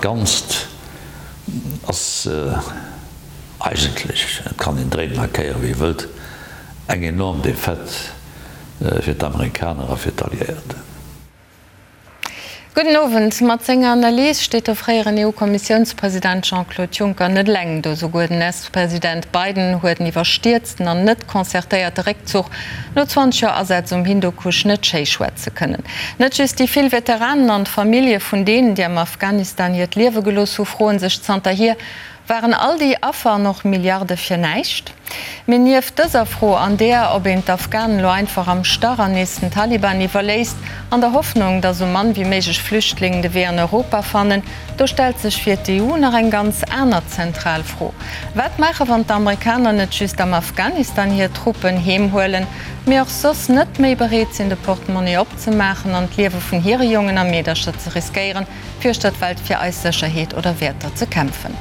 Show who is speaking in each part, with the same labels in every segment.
Speaker 1: Ganzt ass eigentlech, et kann een dréinen a kéieren, wéi ee wëllt, eng enorm Defaite fir d'Amerikaner a fir d'Alliéierten.
Speaker 2: Gudden Owend. Mat senger Analys steet de fréieren EU-Kommissiounspresident Jean-Claude Juncker net eleng do. Souguer den US-President Biden huet en iwwerstierzten an net concertéierte Réckzuch no 20 Joer Asaz um Hindukusch net schéi schwätze kënnen. Net just déi vill Veteranen an d'Famillje vun deenen, déi am Afghanistan hiert Liewe gelooss hu, froe sech zanterhier, Waren all déi Affer an och Milliarde fir näischt? Mee nieft dëser Fro an där, ob een d'Afghanen elo einfach am Stach an nees den Taliban iwwerléisst, an der Hoffnung, datt esou mann wéi méiglech Flüchtlingen de Wee an Europa fannen, do stellt sech fir d'EU nach eng ganz aner zentral Fro, Wat maache wann d'Amerikaner net just am Afghanistan hir Truppen heem huelen, mee och soss net méi bereet sinn de Portemonnaie opzemaachen an d'Liewe vun hire Jongen a Meedercher ze riskéieren, fir uechter d'Welt fir eis Sécherheet oder Wäerter ze kämpfen.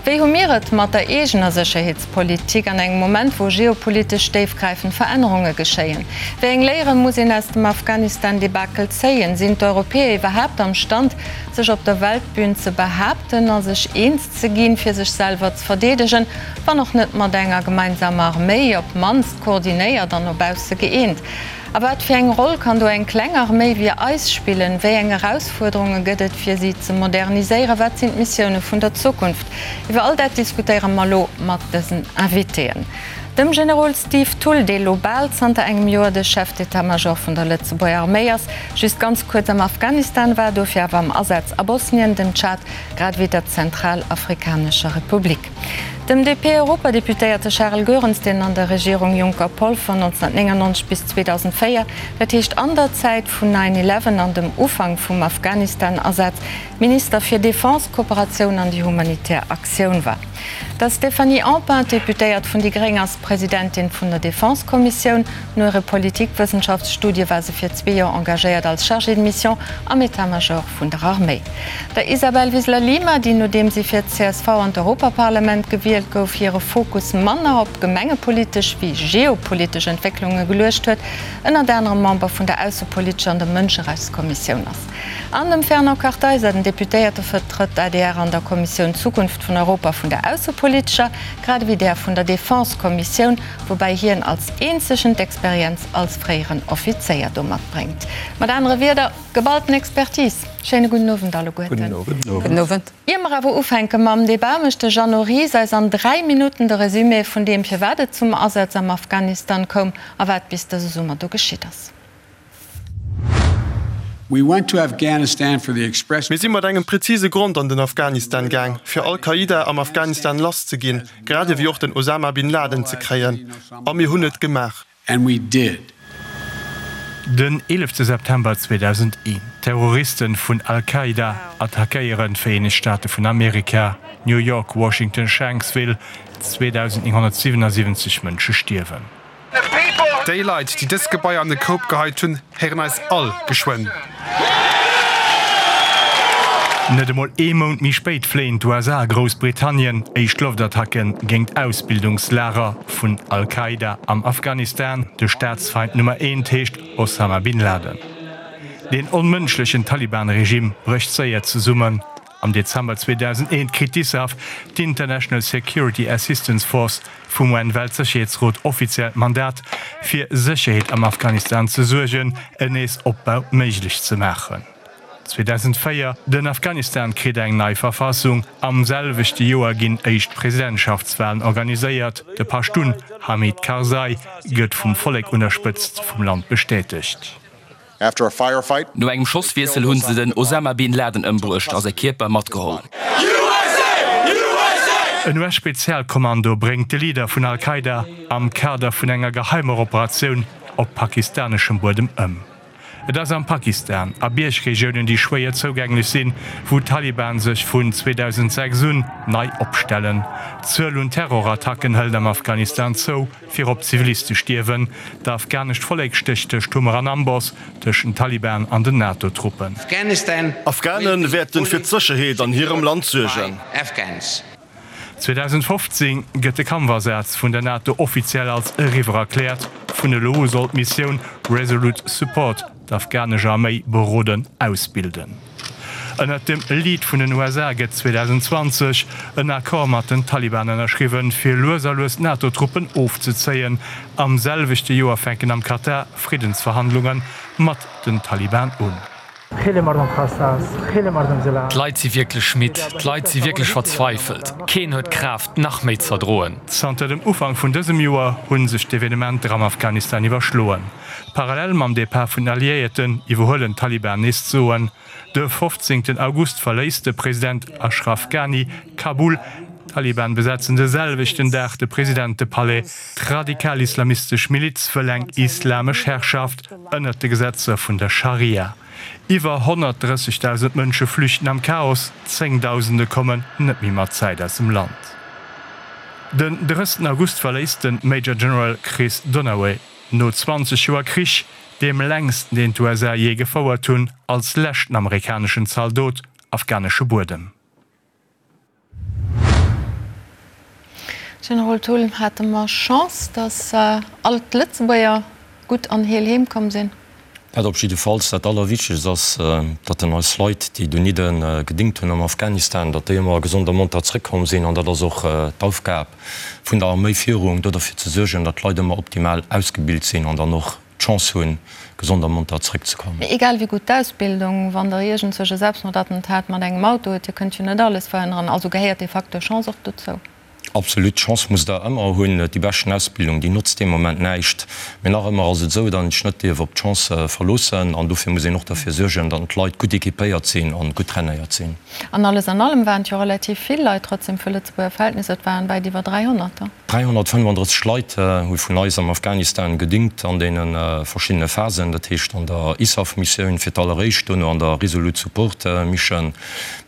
Speaker 2: Wéi hu mir et mat der eegener Sécherheetspolitik an engem Moment, wou geopolitesch déifgräifend Verännerunge geschéien? Wéi eng Léiere muss een aus dem Afghanistan-Debakel zéien? Sinn d'Europäer iwwerhaapt am Stand, sech op der Weltbün ze behaapten a sech eens ze ginn, fir sech selwer ze verdeedegen, wann och net mat enger gemeinsamer Arméi, op d'mannst koordinéiert an no bausse gëeent? A wat fir eng Roll kann do eng kleng Arméi wéi eis spillen? Wéi eng Erausfuerderunge gëtt et, fir si ze moderniséieren? Wat sinn d'Missioune vun der Zukunft? Iwwer all dat diskutéiere mer elo mat dësen Invitéen, dem Generol Steve Thull, dee lo bal zanter engem Joer de Chef d'état-major vun der Lëtzebuerger Arméi ass, just ganz kuerz am Afghanistan war, dofir awer am Asaz a Bosnien, dem Tschad grad ewéi der Zentralafrikanescher Republik. Dem DP-Europadeputéierte Charel Goerens, deen an der Regierung Juncker-Polfer 1999 bis 2004, dat heescht an der Zäit vun Nine Eleven an dem Ufank vum Afghanistan-Asaz, Minister fir Defense, Kooperatioun an déi humanitär Aktioun war. Der Stéphanie Empain, Deputéiert vun déi gréng, ass Presidentin vun der Defense-Kommissioun. No hire Politikwëssenschaftsstudie war se fir zwee Joer engagéiert als Chargée de mission am État-major vun der Arméi. Der Isabel Wiseler-Lima, déi nodeem si fir d'CSV an d'Europaparlament gewielt gouf, hire Fokus manner op gemengepolitesch wéi geopolitesch Entwécklunge geluecht huet, ënnert anerem Member vun der aussepolitescher an der Mënscherechtskommissioun ass. An dem Fernand Kartheiser, den Deputéierte vertrëtt d'ADR an der Kommissioun Zukunft vun Europa vun der aussepolitescher, grad ewéi där vun der Defense-Kommissioun, woubäi hien als eenzegen d'Experienz als fréieren Offizéier do matbréngt. Mat anere Wierder, Geballten Expertise. Schéine gudden Owend alleguerten.
Speaker 3: Gudden Owend.
Speaker 2: Ier mer awer ufänke mam Debat, mécht de Jeannot Ries eis an 3 Minutten de Resumé vun deem, firwat et zum Asaz am Afghanistan koum a wat bis dëse Summer do geschitt ass.
Speaker 4: Mir si mat engem prezise Grond an den Afghanistan gaang, fir Al-Qaida am Afghanistan lass ze ginn, grad ewéi och den Osama bin Laden ze kréien. A mir hunn et gemaach.
Speaker 5: And we did.
Speaker 6: Den 11 September 2001, Terroristen vun Al-Qaida attackéieren d'Vereenegt Staate vun Amerika, New York, Washington, Shanksville, 2.977 Mënsche stierwen.
Speaker 4: Déi Leit, déi dës Gebaier an de Koup geheit hunn, héieren eis all geschwënn.
Speaker 6: Net emol ee Mount méi spéit fléien d'USA a Groussbritannien éischt Loftattacke géint Ausbildungslager vun Al-Qaida am Afghanistan. De Staatsfeind Nummer eent heescht Osama bin Laden. Deen onmënschlechen Taliban-Regime brécht séier zesummen. Am Dezember 2001 kritt d'ISAF, d'International Security Assistance Force, vum UN-Weltsécherheetsrot offiziell d'Mandat, fir Sécherheet am Afghanistan ze suergen, en Neesopbau méiglech ze maachen. 2004, Den Afghanistan kritt eng nei Verfassung. Am selwechte Joer ginn éischt Presidentschaftswalen organiséiert. De Paschtun Hamid Karzai gëtt vum Vollek un der Spëtzt vum Land bestätegt.
Speaker 7: No engem Schosswiessel hunn se den Osama Bin Laden ëmbruecht a säi Kierper matgeholl.
Speaker 6: En US-Spezialkommando bréngt de Leader vun Al-Qaida am Kader vun enger geheimer Operatioun op pakistaneschem Buedem ëm. Et ass am Pakistan, a Biergregiounen, déi schwéier zougänglech sinn, wou d'Taliban sech vun 2006 un nei opstellen. D'Zuel un Terrorattacken hëlt am Afghanistan zou. Virop Ziviliste stierwen. D'afghanescht Vollek stécht tëscht Hummer an Amboss, tëscht den Taliban an den NATO-Truppen.
Speaker 4: Afghane wäerten fir d'Sécherheet an hirem Land suergen.
Speaker 6: 2015 gëtt de Kampfasaz vun der NATO offiziell als eriwwer erkläert. Vun elo u soll d'Missioun Resolute Support d'afghanesch Arméi beroden, ausbilden. Ënnert dem Lead vun den USA gëtt 2020 en Accord mat den Taliban ënnerschriwwen, fir lues a lues d'NATO-Truppen ofzezéien. Am selwechte Joer fänken am Katar Friddensverhandlunge mat den Taliban un.
Speaker 7: D'Leit si wierklech midd, d'Leit si wierklech verzweifelt. Keen huet d'Kraaft, nach méi z'erdroen.
Speaker 6: Zanter dem Ufank vun dësem Joer hu sech d'Evenementer am Afghanistan iwwerschloen. Parallel mam Depart vun den Alliéierten iwwerhuelen d'Taliban nees d'Soen. De 15 August verléisst de President Ashraf Ghani Kabul. D'Taliban besetzen de selwechten Dag de Presidentepalais. D'radikal-islamistesch Miliz wëll eng islamesch Herrschaft ënnert de Gesetzer vun der Scharia. Iwwer 130.000 Mënsche flüchten am Chaos, Zéngdausende kommen net méi mat Zäit aus dem Land. Den 30 August verléisst de Major General Chris Dunaway no 20 Joer Krich, deem längsten deen d'USA jee gefouert hunn, als leschten amerikaneschen Zaldot afghanesche Buedem.
Speaker 2: Generol Thull, hate mer Chance, datt all d'Lëtzebuerger gutt an heel heem komm sinn?
Speaker 3: Dat op jiddefalls. Dat Allerwichtegst ass, datt en eis Leit, déi donidde gedéngt hunn am Afghanistan, datt déi ëmmer gesond a monter zrëckkomm sinn. An dat ass och d'Aufgab vun der Arméifierung, do derfir ze suergen, datt d'Leit ëmmer optimal ausgebilt sinn an dann och d'Chance hunn, gesond a monter zrëckzekommen.
Speaker 2: Mee egal wéi gutt d'Ausbildung, wann Der iergendzwousch e Selbstmordattentat mat engem Auto hutt, Dir kënnt jo net alles verhënneren. Also gehéiert dee Facteur Chance och dozou.
Speaker 3: Absolut, d'Chance musst Der ëmmer hunn. Déi beschten Ausbildung, déi notzt dee Moment näischt. Mee nach ëmmer ass et esou, datt een sech net dierf op d'Chance verloossen. An dofir muss een och derfir suergen, datt d'Leit gutt equipéiert sinn an gutt trainéiert sinn.
Speaker 2: An alles an allem waren et jo relativ vill Leit trotzdem fir Lëtzebuerger Verhältnisser. Et waren wäit iwwer 300 der.
Speaker 3: 335 Leit hu vun eis am Afghanistan gedingt an deene verschiddene Phasen, dat heescht an der ISAF-Missioun fir d'alleréischt, dono an der Resolute Support Mission.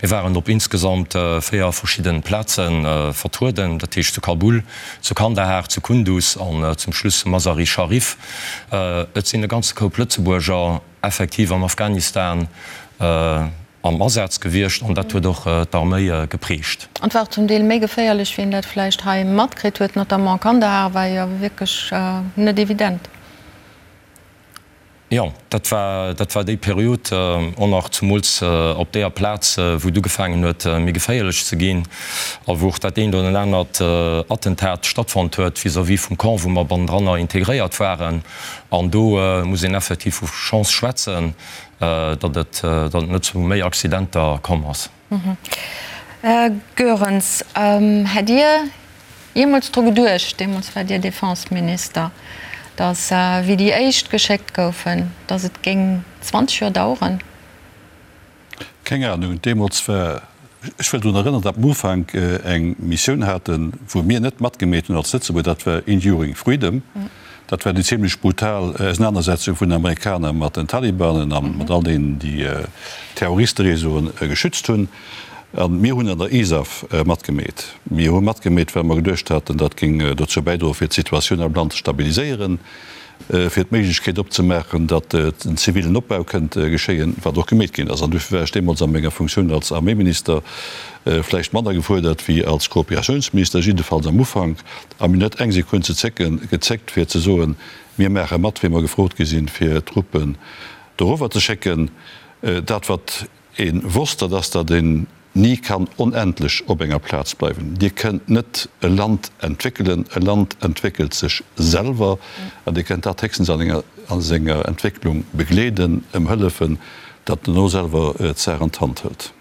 Speaker 3: Mir waren op insgesamt 4 verschidde Plaze vertrueden, dat heescht zu Kabul, zu Kandahar, zu Kunduz an zum Schluss zu Mazar-i-Sharif. Et sinn e ganze Koup Lëtzebuerger effektiv am Afghanistan am Asaz gewiescht an dat huet och d'Arméi geprägt.
Speaker 2: An et war och zum Deel méi geféierlech, wéi een dat vläicht hei matkritt huet. Notamment Kandahar war jo wierklech net evident.
Speaker 3: Jo, dat war, dat war déi Period och nach, zumools op deeër Plaz, wou et ugefaangen huet, méi geféierlech ze ginn a wou och dat eent oder anert Attentat stattfonnt huet vis-à-vis vum Camp, wou mer bannendranner integréiert waren. An do muss een effektiv vu Chance schwätzen, datt et, datt et net zu méi Accidenter komm ass.
Speaker 2: Här Goerens, hätt Dir jeemools dru geduecht, deemools waart Dir Defenseminister, datt, wéi déi éischt geschéckt goufen, datt et géing 20 Joer daueren?
Speaker 5: Keng Ahnung. Deemools war, ech wëll drun erënneren, datt mer am Ufank eng Missioun haten, wou mir net matgemeet hunn als Lëtzebuerg, dat war Enduring Freedom. Dat war déi zimlech brutal Ausenanersetzung vun den Amerikaner mat den Talibanen a mat all deenen, déi Terroristereseauen geschützt hunn. A mir hunn an der ISAF matgemeet. Mir hu matgemeet, well mer geduecht haten, dat géing dozou bäidroen, fir d'Situatioun am Land ze stabiliséieren, fir d'Méiglechkeet opzemaachen, datt en zivilen Opbau kënnt geschéien, wat och gemeet ginn ass. An dofir war ech deemools a menger Funktioun als Arméiminister vläicht manner gefuerdert wéi als Kooperatiounsminister, jiddefalls am Ufank. A mir hunn net eng Sekunn ze zécken, gezéckt, fir ze soen, Mir maache mat, wéi mer gefrot gi sinn, fir Truppen dorower ze schécken. Dat, wat ee wosst, dat ass, datt een ni kann onendlech op enger Plaz bleiwen. Dir kënnt net e Land entwéckelen, e Land entwéckelt sech selwer an Dir kënnt dat héchstens a senger Entwécklung begleeden, em hëllefen, datt en elo selwer d'Saach an d'Hand hëlt.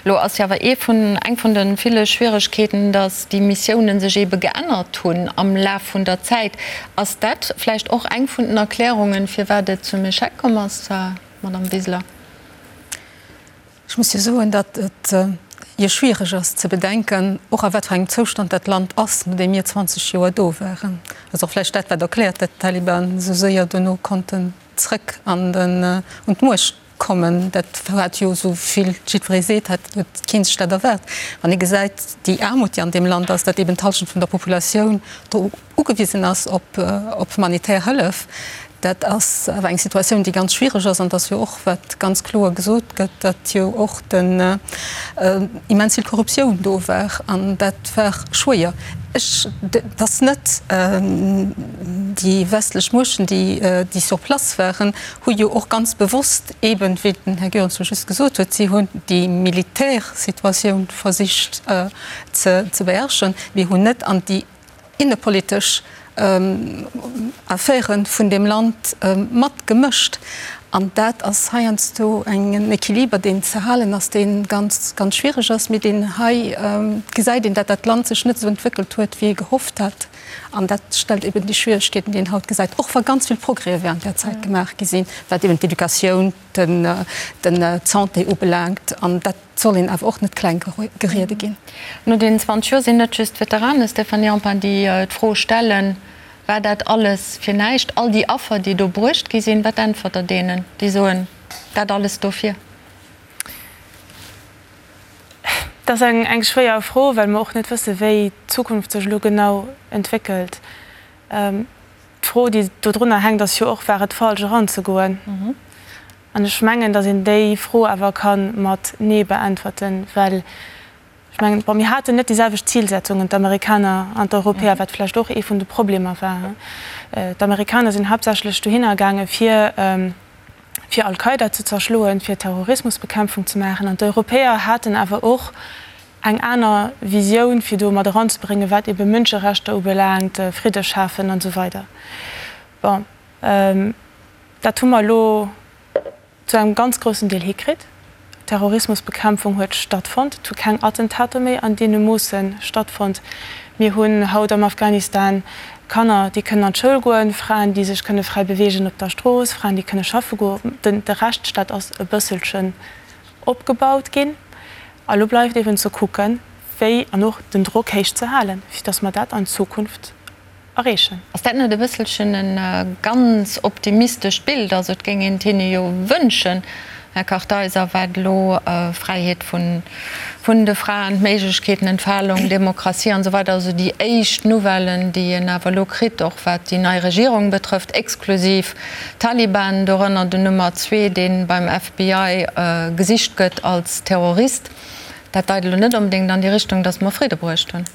Speaker 2: Elo ass jo awer ee vun, eng vun de ville Schwieregkeeten, datt déi Missiounen sech eebe geännert hunn am Laf vun der Zäit. Ass dat vläicht och eng vun den Erklärungen, firwat et zum Echec komm ass, Madamm Wiseler?
Speaker 8: Ech muss jo soen, datt et jo schwiereg ass ze bedenken, och a wat fir engem Zoustand dat Land ass, nodeem mir 20 Joer do waren. Dat ass och vläicht dat, wat erkläert, datt d'Taliban esou séier dono konnten zrëck an den, un d'Muecht kommen. Dat hat jo, esou vill jiddweree seet, hat huet kee sech dat erwaart. Wann ee gesäit, déi Aarmut, déi an deem Land ass, datt eben d'Hallschent vun der Populatioun do ugewisen ass op op humanitär Hëllef, Dat ass awer eng Situatioun, déi ganz schwiereg ass. An et ass jo och, wat ganz kloer gesot gëtt, datt jo och den immens vill Korruptioun do war. An dat war schwéier. Ech, et ass net déi westlech Muechten, déi déi sur place waren, hu jo och ganz bewosst eeben, wéi den Här Goerens jo just gesot huet, si hunn déi Militärsituatioun versicht ze beherrschen, mee hunn net an déi innepolitesch Affäre vun deem Land matgemëscht. An dat ass heiansdo en Equiliber, deen ze halen ass, dee ganz, ganz schwiereg ass, mee deen hei gesäit een, datt dat Land sech net esou entwéckelt huet, wéi ee gehofft hat. An dat stellt eben déi Schwieregkeeten, déi een haut gesäit, och wa ganz vill Progrèse während där Zäit gemaach gi sinn, wat eben d'Educatioun, den d'Santé ubelaangt. An dat soll een awer och net kleng geriede ginn.
Speaker 2: No deenen 20 Joer sinn net just d'Veteranen, Stéphanie Empain, déi d'Fro stellen, War dat alles fir näischt, all déi Affer, déi do bruecht gi sinn? Wat äntwert Der deenen, déi soen, dat alles dofir?
Speaker 9: Dat ass eng schwéier Fro, well mer och net wëssen, wéi d'Zukunft sech elo genau entwéckelt. D'Fro, déi dodrunner hänkt, ass jo och, War et falsch eranzegoen? An ech mengen, datt een déi Fro awer ka mat Nee beäntwerten, well ech mengen, bon, mir haten net déi selwecht Zilsetzungen, d'Amerikaner an d'Europäer, wat vläicht och ee vun de Problemer war. D'Amerikaner sinn haaptsächlech dohinner gaange fir fir Al-Qaida ze zerschloen, fir Terrorismusbekämpfung ze maachen, an d'Europäer haten awer och eng aner Visioun fir do mat eranzebréngen, wat ebe Mënscherechter ubelaangt, Fridde schafen an esou weider. Bon, dat hu mer elo zu engem ganz groussen Deel hikritt. Terrorismusbekämpfung huet stattfonnt, et hu keng Attentater méi an deene Moosse stattfonnt. Mir hunn haut am Afghanistan Kanner, déi kënnen an d'Schoul goen, Fraen, déi sech kënne fräi beweegen op der Strooss, Fraen, déi kënne schaffe goen. De Rechtsstaat ass e bësselchen opgebaut ginn. A lo bleift eben ze kucken, wéi, an och den Drock héich ze halen, fir datt mer dat an Zukunft erreechen.
Speaker 2: Ass dat net e bësselchen e ganz optimistescht Bild? Also et géing een et hinne jo wënschen, Här Kartheiser, wat elo Fräiheet vun de Fraen, d'Méiglechkeeten, Entfalung, Demokratie an esou weider, also déi éischt Nouvellen, déi een awer elo kritt, och wat déi nei Regierung betrëfft, exklusiv Taliban, dorënner den Nummer zwee, dee beim FBI gesicht gëtt als Terrorist, dat deit elo net onbedéngt an déi Richtung, datt mer Fridde bruecht hunn.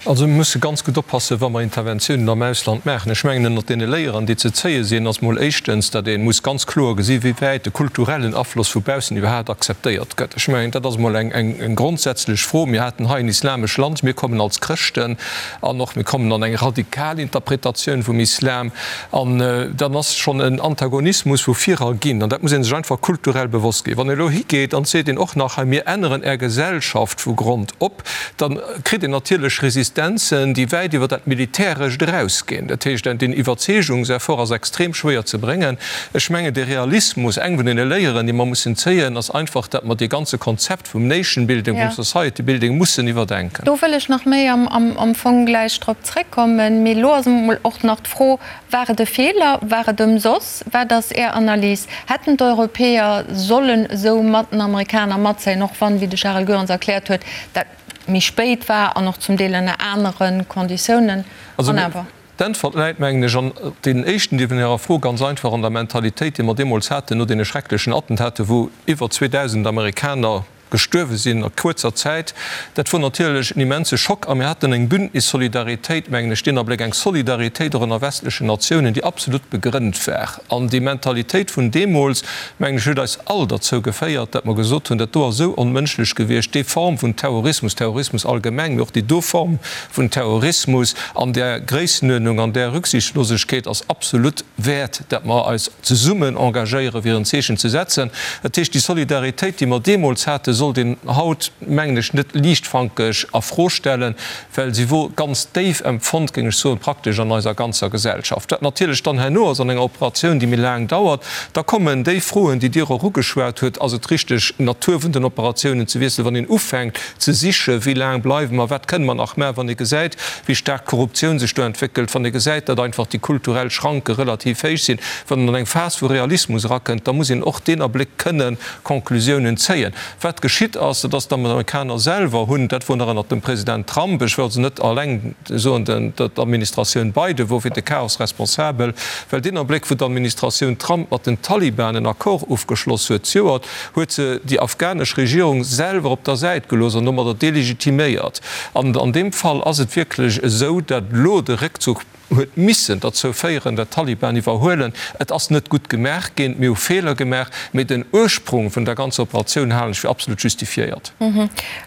Speaker 10: Also mir musse ganz gutt oppassen, wa mer Interventiounen am Ausland maachen. Ech mengen, ënnert deene Léieren, déi ze zéie sinn, ass mol éischtens, datt ee muss ganz kloer gesi wéi wäit de kulturellen Afloss vu baussen iwwerhaapt akzeptéiert gëtt. Ech mengen, dat ass mol eng grondsätzlech Fro. Mir haten hei en islamesch Land, mir kommen als Chrëschten an och mir kommen an eng radikal Interpretatioun vum Islam an dann ass schonn en Antagonismus vu virer ginn an dat muss ee sech einfach kulturell bewosst ginn. Wann ee elo higeet an seet een och nach hei, mir änneren Är Gesellschaft vu Grond op, da kritt een natierlech Resistenzen, déi wäit iwwer dat Militärescht erausginn. Dat heescht, deen Iwwerzeegungseffort ass extrem schwéier ze bréngen. Ech mengen, de Realismus, eng vun deene Léieren, déi mer mussen zéien, ass einfach, datt mer dee ganze Konzept vum Nation building, vum Society building mussen iwwerdenken.
Speaker 2: Do wëll ech nach méi am Fong gläich drop zréckkommen. Mee elo ass emol och nach d'Fro, War et e Feeler? War et ëmsoss? Wat ass Är Analys? Hätten d'Europäer sollen esou mat den Amerikaner matzéien, och wann, wéi de Charel Goerens erkläert huet, dat méi spéit war an och zum Deel ënner anere Konditiounen?
Speaker 10: An awer. D'Äntwert läit, mengen ech, an deenen éischten Deel vun Ärer Fro ganz einfach an der Mentalitéit, déi mer deemools haten no deene schrecklechen Attentater, wou iwwer 2.000 Amerikaner gestuerwe sinn a kuerzer Zäit, dat wor natierlech en immense Schock a mir haten eng Bündnissolidaritéit, mengen ech, deen Abléck, eng Solidaritéit och ënner westlechen Natiounen, déi absolut begrënnt war. An déi Mentalitéit vun deemools, mengen ech, huet eis all derzou geféiert, datt mer gesot hunn, dat do ass esou onmënschlech gewiescht, déi Form vun Terrorismus, Terrorismus allgemeng, mee och déi do Form vun Terrorismus an där Gréissenuerdnung, an där Rücksichtslosegkeet ass absolut wäert, datt mer eis zesummen engagéieren, fir en Zeechen ze setzen. Dat heescht, déi Solidaritéit, déi mer deemools haten, sollt een haut, mengen ech, net liichtfankeg a Fro stellen, well si wor ganz déif empfonnt, géing ech soen, praktesch an eiser ganzer Gesellschaft. Wat natierlech dann herno ass an enger Operatioun, déi méi laang dauert, da kommen déi Froen, déi Dir och ugeschwat hutt, Ass et richteg, d'Natur vun den Operatiounen ze wiesselen, wann een ufänkt ze sichen, wéi laang bleiwe mer, wat kënne mer nach maachen, wann ee gesäit, wéi staark d'Korruptioun sech do entwéckelt, wann ee gesäit, datt einfach déi kulturell Schranke relativ héich sinn, wann een an eng Phas vu Realismus erakënnt, da muss een och deen Abléck kënne Conclusiounen zéien. Wat. geschitt ass, dat ass, d'Amerikaner selwer hunn, dat wor nach ënnert dem President Trump, ech wëll also net alleng soen, d'Administratioun Biden wor fir de Chaos responsabel, well deen Abléck, wou d'Administratioun Trump mat den Taliban en Accord ofgeschloss huet zejoert, huet se déi afghanesch Regierung selwer op der Säit gelooss an domadder delegitiméiert. An an deem Fall ass et wierklech esou, datt elo de Réckzuch huet missen derzou féieren, datt d'Taliban iwwerhuelen. Et ass net gutt gemaach ginn, mir hu Feeler gemaach, mee den Ursprung vun der ganzer Operatioun halen ech fir absolut justifiéiert.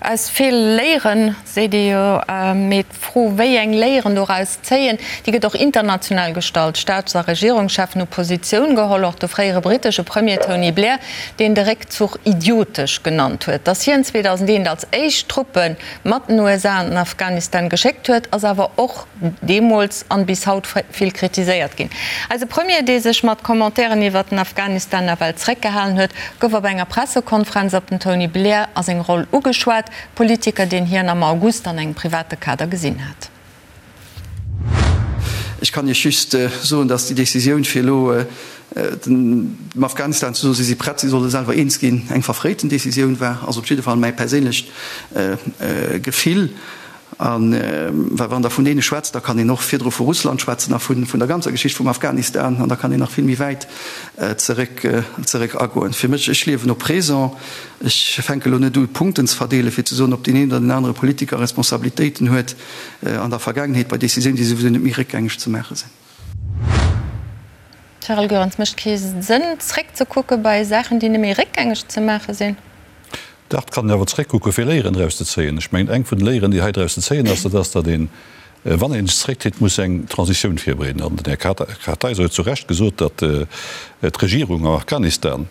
Speaker 2: Aus Feeler léieren, seet ee jo. Mee d'Fro, wéi eng Léieren doraus zéien, déi gëtt och international gestallt. Staats a Regierungscheffen hu Positioun geholl, och de fréiere brittesche Premier Tony Blair, deen de Réckzuch idiotesch genannt huet. Datt hien 2001 als éischt Truppe mat den USA an den Afghanistan geschéckt huet, ass awer och deemools an bis haut vill kritiséiert ginn. Eise Premier, dee sech mat Commentairen iwwert den Afghanistan nawell zréckgehalen huet, gouf op enger Pressekonferenz op den Tony Blair a seng Roll ugeschwat, Politiker, deen hien am August an engem private Kader gesinn hat.
Speaker 11: Ech kann Iech just soen, datt déi Décisioun, fir elo dem Afghanistan ze soen, si si prett, si solle selwer eens ginn, eng verfréiten Décisioun war, ass op jidde Fall mäi perséinlecht Gefill. A well wann Der vun deene schwätzt, da kann een och virdru vu Russland schwätzen a vun der ganzer Geschicht vum Afghanistan an da kann een nach vill méi wäit zeréck zeréck agoen. Fir mech, ech liewen au présent, ech fänke elo net u Punkten ze verdeelen, fir ze soen, ob deen een oder deen anere Politiker Responsabilitéiten huet an der Vergaangenheet bei Décisiounen, déi souwisou net méi réckgängeg ze maache sinn.
Speaker 2: Charel Goerens, Mécht kee Sënn zréckzekucke bei Saachen, déi net méi réckgängeg ze maache sinn?
Speaker 5: Dach, et kann een awer zréckkucken, fir Léieren draus ze zéien. Ech mengen, eng vun de Léieren, déi hei draus ze zéien ass, dat ass, datt een, wann ee sech zréckzitt, muss eng Transitioun virbereeden. An den Här Kartheiser huet zu Recht gesot, datt d'Regierung am Afghanistan,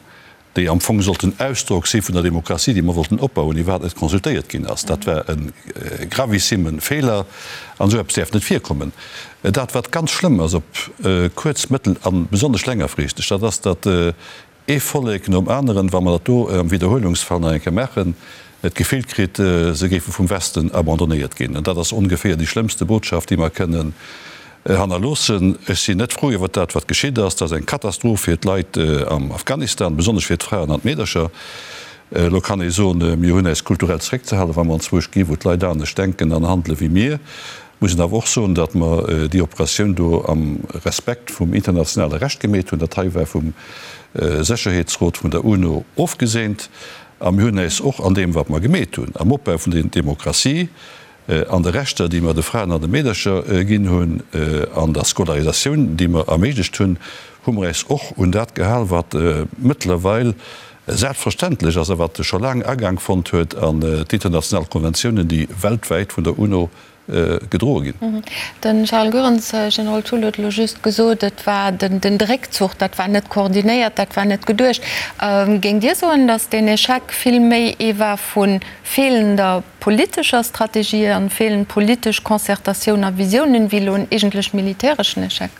Speaker 5: déi am Fong sollt den Ausdrock si vun der Demokratie, déi mer wollten opbauen, iwwerhaapt net consultéiert ginn ass. Dat war e gravissime Feeler an esou eppes däerf net virkommen. Dat, wat ganz schlëmm ass op kuerz-, mëttel a besonnesch längerfristeg, dat ass, datt ee Vollek nom aneren, wa mer dat do am Widderhuelungsfall nach eng Kéier maachen, d'Gefill kritt, se géife vum Westen abandonnéiert ginn. An dat ass ongeféier déi schlëmmste Botschaft, déi mer kënnen hannerloossen. Ech sinn net frou iwwert dat, wat geschitt ass. Dat ass eng Katastroph fir d'Leit am Afghanistan, besonnesch fir d'Fraen an d'Meedercher. Elo kann ee soen, mir hunn äis kulturell zeréckzehalen, wa mer anzwousch gi wou d'Leit anescht denken an handele wéi mir. Muss een awer och soen, datt mer déi Operatioun do am Respekt vum internationale Recht gemeet hunn. Dat hei war vum Sécherheetsrot vun der UNO ofgeseent. A mir hunn äis och an deem, wat mer gemeet hunn, am Opbau vun der Demokratie, an de Rechter, déi mer de Fraen an de Meedercher ginn hunn, an der Scolarisatioun, déi mer erméiglecht hunn, hu mer äis och un dat gehal, wat mëttlerweil selbstverständlech ass a wat scho laang Agaang fonnt huet an d'international Konventiounen, déi weltwäit vun der UNO gedroe ginn.
Speaker 2: De Charles Goerens, Generol Thull huet elo just gesot, et war den Réckzuch, dat war net koordinéiert, dat war net geduecht. Géingt Dir soen, datt deen Echec vill méi ee war vu feelender politescher Strategie an feelend politesch Concertatioun a Visiounen, wéi elo en eegentlech militäreschen Echec?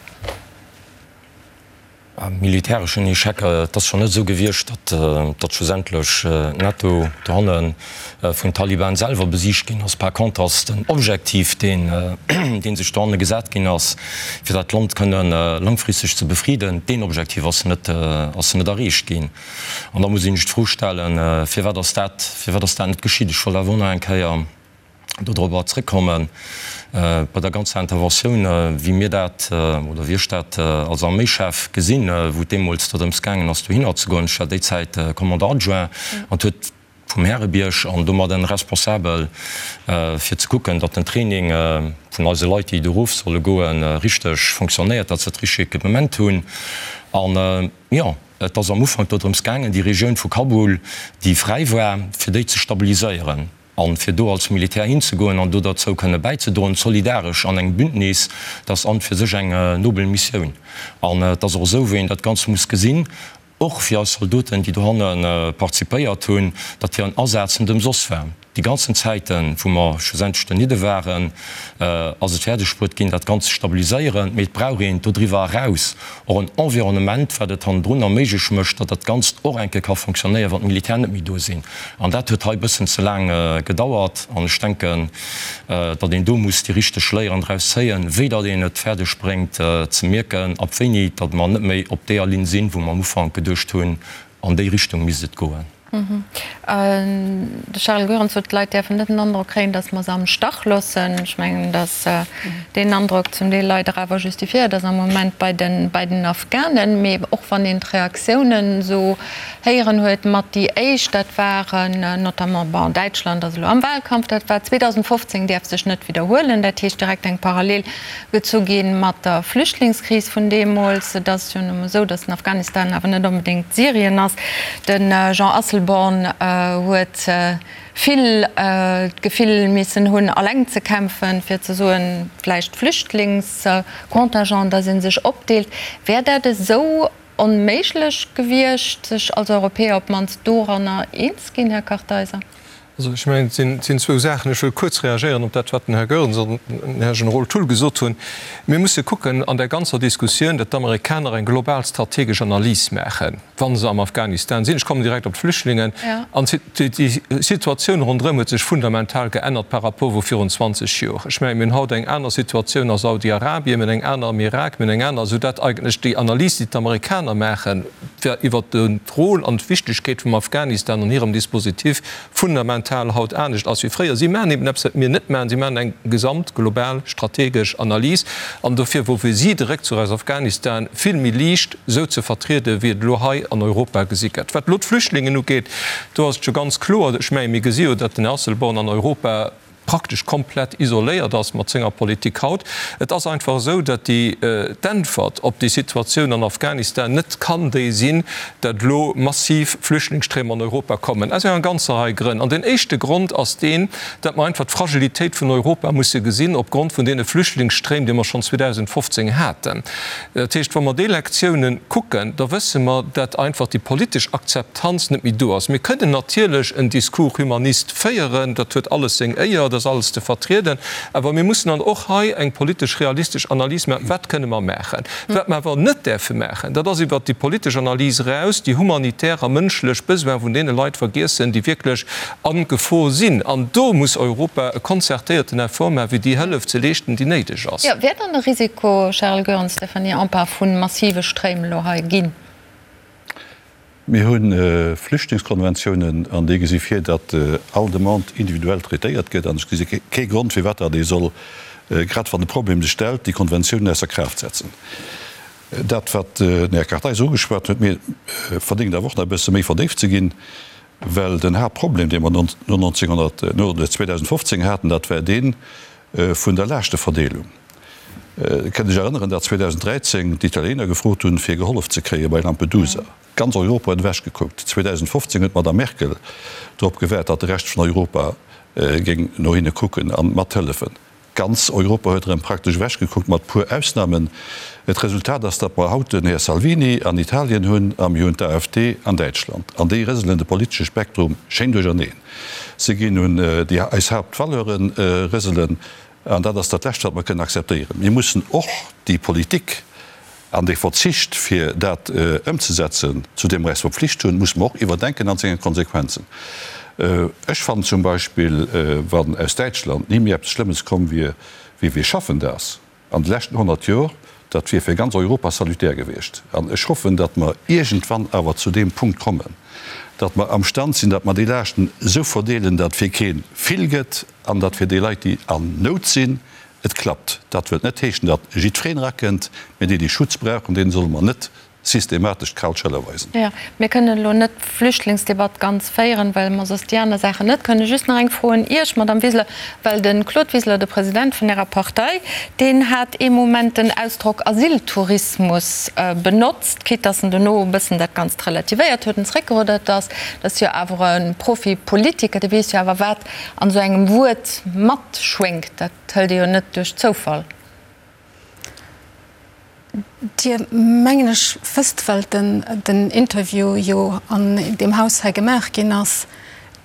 Speaker 3: Militäreschen Echec, et ass schonn net esou gewiescht, datt datt schlussendlech d'NATO dohanne vun Taliban selwer besiegt ginn ass. Par contre ass den Objektiv, deen dee sech dohanne gesat ginn ass, fir dat Land kënne langfristeg ze befriden, deen Objektiv ass net ass net erreecht ginn. An da muss een sech d'Fro stellen, firwat ass dat firwat ass dat net geschitt? Ech wollt awer och nach eng Kéier dodrobber zréckkommen, bei der ganzer Interventioun, wéi mir dat, oder wéi ech dat als Arméischef gesinn, wou et deemools dorëms gaangen ass, dohinner ze goen. Ech war déi Zäit Commandant adjoint an et huet vum Härebierg an domadden responsabel fir ze kucken, datt den Training vun eise Leit, déi do erof solle goen, richteg fonctionnéiert, datt se dat richteg Equipement hunn. An, jo, et ass am Ufank dodrëms gaangen, déi Regioun vu Kabul, déi fräi war, fir déi ze stabiliséieren. An fir do als Militär hinzegoen an do derzou kënne bäizedroen, solidaresch an engem Bündnis, dat ass an fir sech eng nobel Missioun. An et ass och esou, wéi een dat Ganzt muss gesinn, och fir eis Zaldoten, déi dohanne participéiert hunn, datt hiren Asaz net ëmsoss war. Déi ganzen Zäiten, wou mer schlussendlech donidde waren, ass et fäerdeg bruet ginn, dat Ganzt ze stabiliséieren. Mee et brauch een dodriwwer eraus och en Environnement, wat et hannendrun erméiglech mécht, datt dat Ganzt och eng Kéier ka fonctionnéieren, wann d'Militär net méi do sinn. An dat huet hei e bëssen ze laang gedauert. An ech denken, datt een do muss déi richteg Léieren draus zéien, wéi datt een et fäerdeg bréngt ze mierken, ab wéini datt mer net méi op deeër Linn sinn, wou mer am Ufank geduecht hunn, an déi Richtung misst et goen.
Speaker 2: De Charel Goerens sot, d'Leit däerfen net den Androck kréien, datt mer se am Stach loossen. Ech mengen, datt deen Androck zum Deel leider awer justifiéiert ass am Moment bei den Afghanen. Mee och wann een d'Reaktiounen esou héieren huet, mat déi éischt, dat waren notamment, bon, Däitschland ass elo am Wahlkampf, dat war 2015, däerf sech net widderhuelen. Dat heescht direkt eng Parallel gezu gi mat der Flüchtlingskris vun deemools. Et ass jo nu mol esou, datt den Afghanistan awer net onbedéngt Syrien ass. De Jean Asselborn huet vill d'Gefill missen hunn, alleng ze kämpfen, fir ze soen, vläicht Flüchtlingscontingent, datt ee sech opdeelt. Wär dat esou onméiglech gewiescht, sech als Europäer op d'mannst doranner eens ginn, Här Kartheiser?
Speaker 10: Also ech mengen, et sinn zwou Saachen. Ech wëll kuerz reagéieren op dat, wat den Här Goerens an den Här Generol Thull gesot hunn. Mir musse kucken an där ganzer Diskussioun, datt d'Amerikaner eng global strategesch Analys maachen, wa se am Afghanistan sinn. Ech kommen direkt op d'Flüchtlingen. An déi Situatioun ronderëm huet sech fundamental geännert par rapport wou virun 20 Jor. Ech mengen, mir hunn haut eng aner Situatioun a Saudi-Arabien, mir hunn eng aner am Irak, mir hunn eng aner, soudatt eigentlech déi Analys, déi d'Amerikaner maachen, fir iwwert d'Rôle an d'Wichtegkeet vum Afghanistan an hirem Dispositif fundamental haut anescht ass wéi fréier. Si maachen eben eppes, wat mir net maachen, si maachen eng gesamt global strategesch Analys. An dofir wor fir si de Réckzuch aus Afghanistan vill méi liicht esou ze vertrieden, wéi et elo hei an Europa gesi gëtt. Wat elo d'Flüchtlingen ugeet, do ass et jo ganz kloer, ech menge mir gesi jo, datt den Här Asselborn an Europa praktesch komplett isoléiert ass mat senger Politik haut. Et ass einfach esou, datt déi d'Äntwert op déi Situatioun an Afghanistan net kann déi sinn, datt elo massiv Flüchtlingsstréim an Europa kommen, aus enger ganzer Rei Grënn. An deen éischte Grond ass deen, datt mer einfach d'Fragilitéit vun Europa musse gesinn opgrond vun deene Flüchtlingsstréim, déi mer schonn 2015 haten. Dat heescht, wa mer déi Lektiounen kucken, da wësse mer, datt einfach déi politesch Akzeptanz net méi do ass. Mir kënnen natierlech en Discours humaniste féieren, dat huet alles seng Éier, dat ass alles ze vertrieden, awer mir mussen dann och hei eng politesch realistesch Analys maachen, Wat kënne mer maachen? Wat mer awer net däerfe maachen, dat ass iwwert déi politesch Analys eraus déi humanitär a mënschlech Besoine vun deene Leit vergiessen, déi wierklech a Gefor sinn. An do muss Europa e konzertéierten Effort maachen, fir déi Hëllef ze leeschten, déi néideg ass.
Speaker 2: Jo, wär dann de Risiko, Charel Goerens, Stéphanie Empain, vu massive Stréim elo hei ginn?
Speaker 5: Mir hu Flüchtlingskonventiounen an déi gesi vir, datt all Demande individuell traitéiert gëtt. An ech gesi kee Grond, firwat datt ee soll, grad wann de Problem sech stellt, déi Konventiounen ausser Kraaft setzen. Dat, wat den Här Kartheiser ugeschwat huet, mir verdéngt awer och nach e bësse méi verdéift ze ginn, well den Haaptproblem, dee mer no 1900, no 2015 haten, dat war dee vun der Laaschteverdeelung. Dir kënnt Iech erënneren, datt 2013 d'Italiener gefrot hunn, fir gehollef ze kréie bei Lampedusa. Ganz Europa huet ewech gekuckt. 2015 huet d'Madame Merkel drop gewaart, datt de Rescht vun Europa géing no hinne kucken a mathëllefen. Ganz Europa huet erëm praktesch ewech gekuckt, mat puer Ausnamen. D'Resultat ass, datt mer haut den Här Salvini an Italien hunn a mir hunn d'AfD an Däitschland. An déi rëselen de politesche Spektrum schéin duercherneen. Se ginn un déi eis Haaptvaleuren rëselen. An dat ass dat Lescht, wat mer kënnen akzeptéieren. Mir mussen och déi Politik an dee Verzicht, fir dat ëmzesetzen, zu deem mer eis verpflicht hunn, musse mer och iwwerdenken an senge Konsequenzen. Ech fannen zum Beispill, wann aus Däitschland ni méi eppes Schlëmmes komm wier wéi Wir schaffen das an de leschten 100 Jor, dat wier fir ganz Europa salutär gewiescht. An ech hoffen, datt mer iergendwann awer zu deem Punkt kommen, datt mer amstand sinn, datt mer déi Laaschten esou verdeelen, datt fir kee vill gëtt an datt fir déi Leit, déi an Nout sinn, et klappt. Dat wëllt net heeschen, datt jiddwereen erakënnt, mä déi, déi Schutz brauchen, deene solle mer net systematesch d'kal Schëller weisen.
Speaker 2: Jo, mir kënnen elo net d'Flüchtlingsdebatt ganz féieren, well mer soss déi aner Saachen net kënnen. Just nach eng Fro un Iech, Madamm Wiseler, well de Claude Wiseler, de President vun Ärer Partei, deen hat ee Moment den Ausdrock Asyltourismus benotzt, quitte dass en dono e bëssen dat Ganzt relativéiert huet en zréckgeruddert ass. Dat ass jo awer e Profipolitiker, dee weess jo awer, wat an esou engem Wuert matschwéngt. Dat hëlt ee jo net duerch Zoufall.
Speaker 8: Dir, mengen ech, wësst, well den Interview jo an deem Haus hei gemaach ginn ass,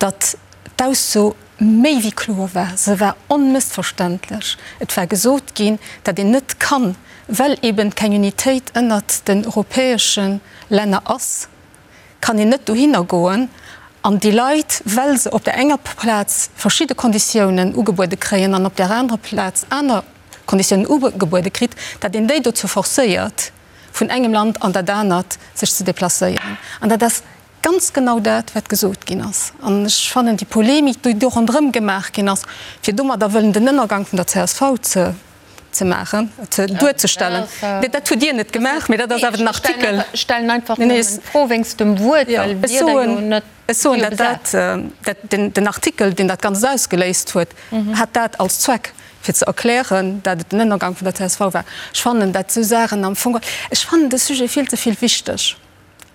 Speaker 8: datt d'Ausso méi wéi kloer war. Se war onmëssverständlech. Et war gesot ginn, datt een net kann, well eben keng Unitéit ënnert den europäesche Länner ass, kann een net dohinner goen an déi Leit, well se op där enger Plaz verschidde Konditiounen ugebuede kréien an op där anerer Plaz aner Konditiounen ugebuede kritt, datt een déi dozou forcéiert, vun engem Land an dat anert sech ze deplacéieren. An dat ass. ganz genau dat, wat gesot ginn ass. An ech fannen déi Polemik, déi do ronderëm gemaach ginn ass, fir domadder wëllen den Ënnergang vun der csv ze ze maachen, ze duerzestellen, nee, dat hutt Dir net gemaach, mee dat ass awer den Artikel.
Speaker 2: Ech stellen einfach nëmmen d'Fro wéinst dem Wuert, well Wierder jo net.
Speaker 8: Ech soen, datt dat, dat den, den Artikel, deen dat Ganzt ausgeléist huet, hat dat als Zweck, fir ze erklären, dat et den Ënnergang vun der csv war. Ech fannen dat esou Saachen am Fong, ech fannen de Sujet vill ze vill wichteg.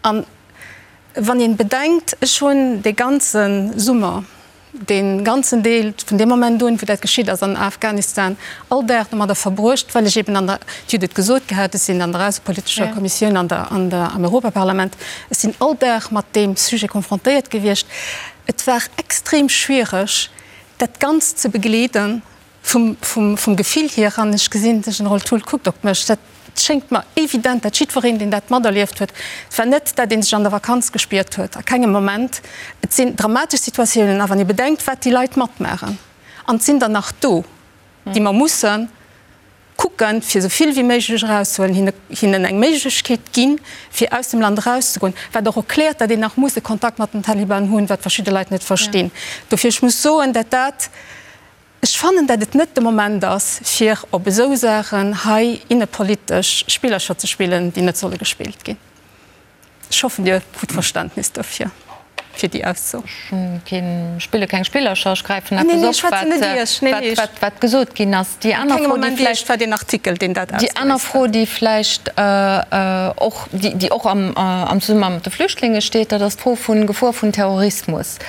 Speaker 8: An wann een bedenkt, ech hunn dee ganze Summer, dee ganzen Deel vun deem Moment un, wou dat geschitt ass an Afghanistan, all Dag domadder verbruecht, well ech eben an der, Dir hutt et gesot gehat, ech sinn an der aussepolitescher Kommissioun an der, an der, am Europaparlament, ech sinn all Dag mat deem Sujet konfrontéiert gewiescht. Et war extrem schwiereg, dat Ganzt ze begleeden vum, vum, vum Gefill hier. An ech gesinn, de Generol Thull kuckt op mech, dat schéngt mer evident, dat jiddwereen, deen dat materlieft huet, et war net, dat ee sech an der Vakanz gespiert huet, a kengem Moment. Et sinn dramatesch Situatiounen. A wann ee bedenkt, wat déi Leit matmaachen, an et sinn der nach do, déi mer mussen kucken, fir esou vill wéi méiglech erauszehuelen, hinne, hinnen eng Méiglechkeet ginn, fir aus dem Land erauszegoen, wat och erkläert, datt een nach muss e Kontakt mat den Taliban hunn, wat verschidde Leit net verstinn. Dofir, ech muss soen, dat dat, ech fannen, dat et net de Moment ass, fir op esou Saachen hei innepolitesch Spillercher ze spillen, déi net solle gespillt ginn. Ech hoffen, Dir hutt Verständnis dofir, fir déi Ausso.
Speaker 2: Ech spille keng Spillercher, ech gräifen eppes op, wat gesot ginn ass. Déi aner Fro, déi vläicht, déi aner Fro, déi vläicht och, déi och am Zesummenhang mat de Flüchtlinge steet, dat ass d'Fro vun Gefor vun Terrorismus.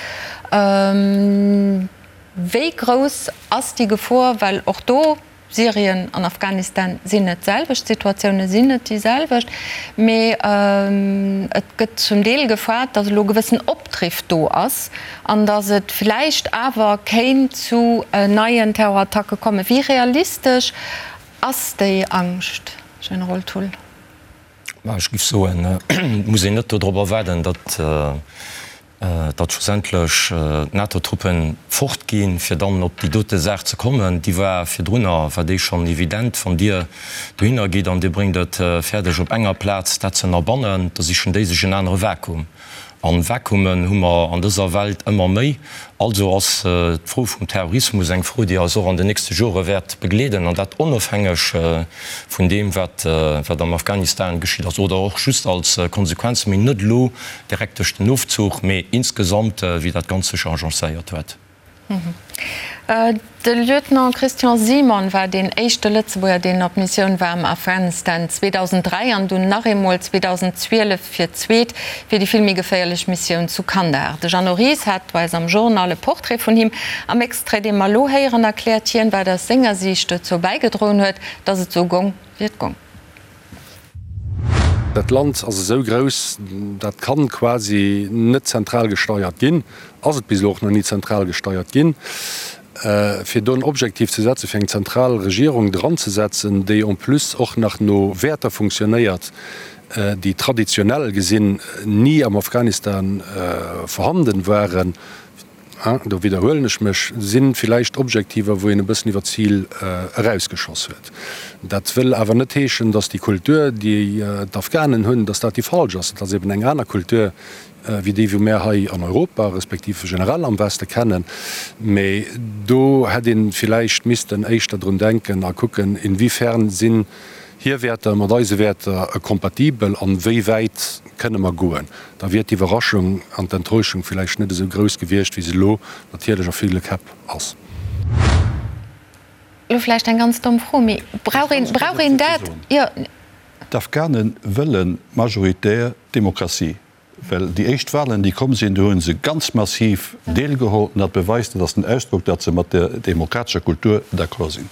Speaker 2: Wéi grouss ass déi Gefor? Well och do Syrien an Afghanistan sinn net d'selwecht, d'Situatioune sinn net déi selwecht, mee et gëtt zum Deel gefaart, datt elo e gewëssen Opdriff do ass an datt et vläicht awer kéint zu neien Terrorattacke kommen. Wéi realistesch ass déi Angscht, Generol Thull?
Speaker 3: Ech géif soen, et muss een net dodrobber waarden, datt datt schlussendlech d'NATO-Truppen fort ginn, fir dann op déi dote Saach ze kommen, déi war virdrunner, war déi schonn evident. Wann Dir dohinner gitt an Dir bréngt et fäerdeg op enger Plaz dat ze ënnerbannen, da sichen déi sech en anere Vakuum. A Vakuumen hu mer an dëser Welt ëmmer méi. Also ass d'Fro vum Terrorismus eng Fro, déi eis och an den nächste Jore wäert begleeden, an dat onofhängeg vun deem, wat am Afghanistan geschitt ass, oder och just als Konsequenz, mee net elo Direkt duerch den Ofzuch, mee insgesamt wéi dat Ganzt sech agencéiert huet.
Speaker 2: De Lieutenant Christian Simon war deen éischte Lëtzebuerger, deen op Missioun war am Afghanistan 2003 an dunn nach eemol 2012 fir d'zweet fir déi vill méi geféierlech Missioun zu Kandahar. De Jeannot Ries hat bei eis am Journal e Portrait vun him. Am Extrait, dee mer elo héieren, erkläert hien, wat aus senger Siicht dozou bäigedroen huet, datt et esou gong, wéi et gong.
Speaker 12: Dat Land ass esou grouss, dat kann quasi net zentral gesteiert ginn, ass et bis elo och nach ni zentral gesteiert ginn. Fir do en Objektiv ze setzen, fir eng zentral Regierung dranzesetzen, déi en plus och nach no Wäerter funktionéiert, déi traditionell gesinn ni am Afghanistan vorhanden waren, do widderhuelen ech mech, si villäicht Objektiver, wou een e bëssen iwwer d'Zil erausgeschoss huet. Dat wëll awer net heeschen, datt déi Kultur, déi d'Afghanen hunn, datt dat déi falsch ass. Et ass eben eng aner Kultur wéi déi, wou mär hei an Europa, respektiv generell am Weste kennen. Mee do hätt ee villäicht missten éischter drun denken a kucken, inwiefern sinn hir Wäerter mat eise Wäerter kompatibel an wéi wäit kënne mer goen. Da wier d'Iwwerraschung an d'Enttäuschung villäicht net esou grouss gewiescht, wéi se elo natierlech a ville Käpp ass.
Speaker 2: Elo vläicht eng ganz domm Fro, mee brauch een, brauch een dat? Jo.
Speaker 5: D'Afghane wëlle majoritär Demokratie, well déi éischt Wahlen, déi komm sinn, do hu se ganz massiv deelgeholl. An dat beweist, dat ass den Ausdrock, datt se mat der demokratescher Kultur d'accord sinn.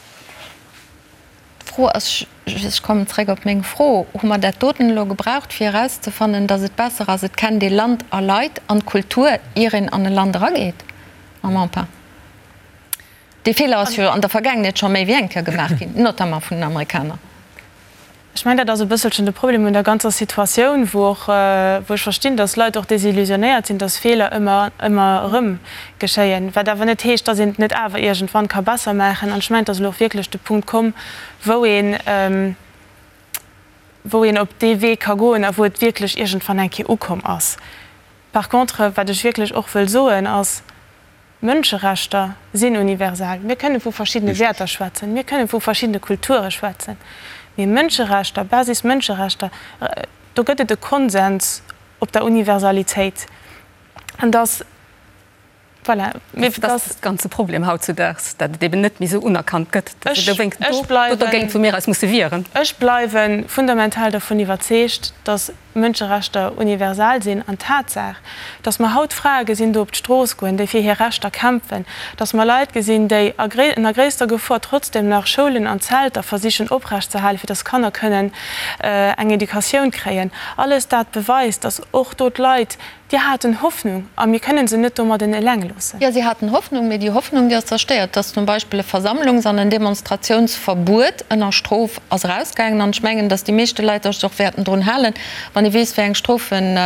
Speaker 2: D'Fro ass, ech kommen zréck op meng Fro, Hu mer dat doten elo gebraucht, fir erauszefannen, datt et besser ass, et kennt ee Land a Leit an d'Kultur, ier een an e Land erageet? Mme Empain. Dee Feeler ass jo an der Vergaangenheet scho méi wéi eng Kéier gemaach ginn, notamment vun den Amerikaner.
Speaker 9: Ech mengen, dat ass e bësselchen de Problem un der ganzer Situatioun, wou och, wou ech verstinn, dass Leit och desillusionéiert sinn, dass Feeler ëmmer, ëmmer erëm geschéien, wat awer net heescht, dass een et net awer iergendwann ka besser maachen. An ech mengen, et ass elo och wierklech de Punkt komm, wou een, wou een op dee Wee ka goen a wou et wierklech iergendwann eng Kéier ukomm ass. Par contre, wat ech wierklech och wëll soen, ass, Mënscherechter sinn universal. Mir kënne vu verschiddene Wäerter schwätzen, mir kënne vu verschiddene Kulture schwätzen, mee Mënscherechter, Basis-Mënscherechter, do gëtt et e Konsens op der Universalitéit. An dass, voilà,
Speaker 8: mir, dass. Dat ass de ganze Problem hautzudaags, dat et eben net méi esou unerkannt gëtt, dass et dowéinst do dergéint vu mir eis musse wieren.
Speaker 9: Ech bleiwe fundamental dervun iwwerzeegt, dass Mënscherechter universal sinn an d'Tatsaach, dass mer haut Frae gesinn do op d'Strooss goen, déi fir hir Rechter kämpfen, dass mer Leit gesinn, déi a ënner gréisster Gefor trotzdem nach Schoulen an Zelter versichen oprecht ze halen, fir dass Kanner kënnen eng Educatioun kréien, alles dat beweist, dass och do d'Leit Déi haten Hoffnung a mir kënnen se net domadden eleng loossen.
Speaker 2: Jo, si haten Hoffnung, mee déi Hoffnung, déi ass zerstéiert. Dass zum Beispill e Versammlungs an en Demonstratiounsverbuet ënner Strof ass erausgaangen. An ech mengen, dass déi meeschte Leit sech och wäerten drun halen, wann ee weess, wéi eng Strofen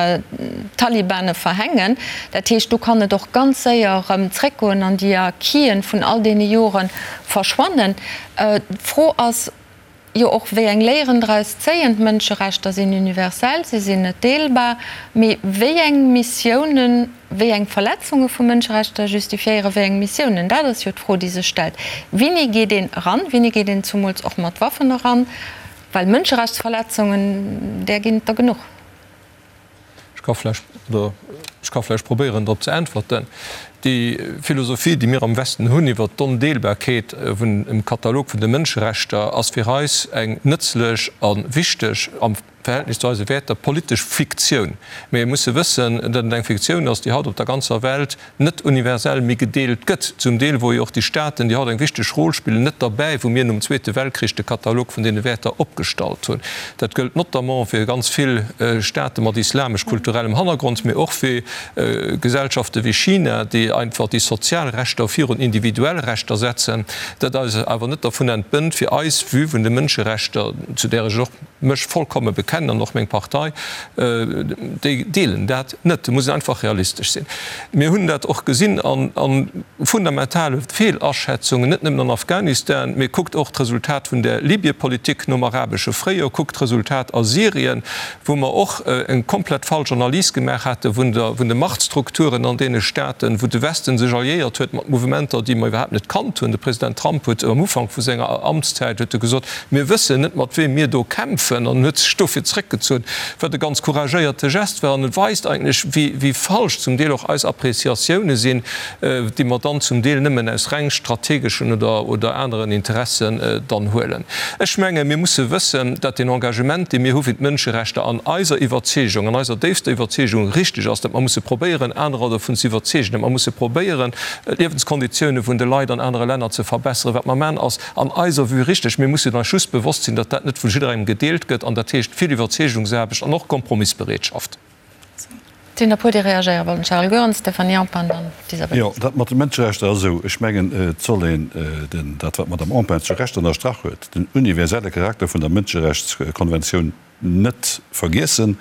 Speaker 2: d'Talibane verhängen. Dat heescht, do kann et och ganz séier erëm zréckgoen an déi Acquisen vun all deene Jore verschwannen. D'Fro ass, Jo och wéi eng Léieren draus zéien. D'Mënscherechter sinn universell, si sinn net deelbar, mee wéi eng Missiounen, wéi eng Verletzunge vu Mënscherechter justifiéiere wéi eng Missiounen? Dat ass jo d'Fro, déi sech stellt. Wéini geet een eran? Wéini geet een zumools och mat Waffen eran? Well Mënscherechtsverletzungen, där ginn et der genuch.
Speaker 10: Ech ka vläch, oder ech ka vläch probéieren drop ze äntwerten. Déi Philosophie, déi mir am Westen hunn iwwert d'Ondeelbarkeet vun dem Katalog vun de Mënscherechter, ass fir eis eng nëtzlech a wichteg, am Verhältnis zu eise Wäerter, politesch Fiktioun. Mee mir musse wëssen, datt et eng Fiktioun ass, déi haut op der ganzer Welt net universell méi gedeelt gëtt, zum Deel wou jo och déi Staaten, déi haut eng wichteg Rôle spillen, net derbäi, wou mir nom Zweete Weltkrich de Katalog vun deene Wäerter opgestallt hunn. Dat gëllt notamment fir ganz vill Staate mat islamesch-kulturellem Hannergrond, mee och fir Gesellschafte wéi China, déi einfach déi sozial Rechter virun individuell Rechter setzen. Dat eis awer net dervun entbënnt, fir eis Vue vun de Mënscherechter, zu där ech och mech vollkomme bekennen an och meng Partei, déi deelen dat net. Do muss een einfach realistesch sinn. Mir hunn dat och gesinn a fundamentale Feelaschätzungen, net nëmmen an Afghanistan, mee kuckt och d'Resultat vun der Libyepolitik nom arabesche Fréijoer, kuckt d'Resultat a Syrien, wou mer och eng komplett falsch Analys gemaach hate vun de Machtstrukturen an deene Staaten, wou de Westen sech alliéiert huet mat Mouvementer, déi mer iwwerhaapt net kannt hunn. De President Trump huet am Ufank vu senger Amtszäit huet e gesot, Mir wëssen net, mat weem mir do kämpfen, an huet sech dofir zréckgezunn, wat e ganz couragéierte Gest war. An et weist eigentlech, wéi falsch zum Deel och eis Appréciatioune sinn, déi mer dann zum Deel nëmmen aus reng strategeschen oder aneren Interessen dann huelen. Ech menge mir musse wëssen, datt deen Engagement, dee mir hu fir d'Mënscherechter, an eiser Iwwerzeegung, an eiser déifster Iwwerzeegung richteg ass, datt mer musse probéieren, anerer dovun ze iwwerzeegen, datt mer musse probéieren, d'Liewenskonditioune vun de Leit an anere Länner ze verbesseren. Wat mer maachen, ass an eiser Vue richteg. Mir mussen eis just bewosst sinn, datt dat net vu jidderengem gedeelt gëtt, an dat heescht vill Iwwerzeegungsaarbecht an och Kompromissbereetschaft.
Speaker 2: Et sinn der puer, déi reagéiere wollten. Charel Goerens, Stéphanie Empain, dann d'Isabel
Speaker 5: Jo, dat mat de Mënscherechter ass esou. Ech mengen, et soll een den, dat wat d'Madame Empain zu Recht ënnerstrach huet, den universelle Charakter vun der Mënscherechtskonventioun net vergiessen,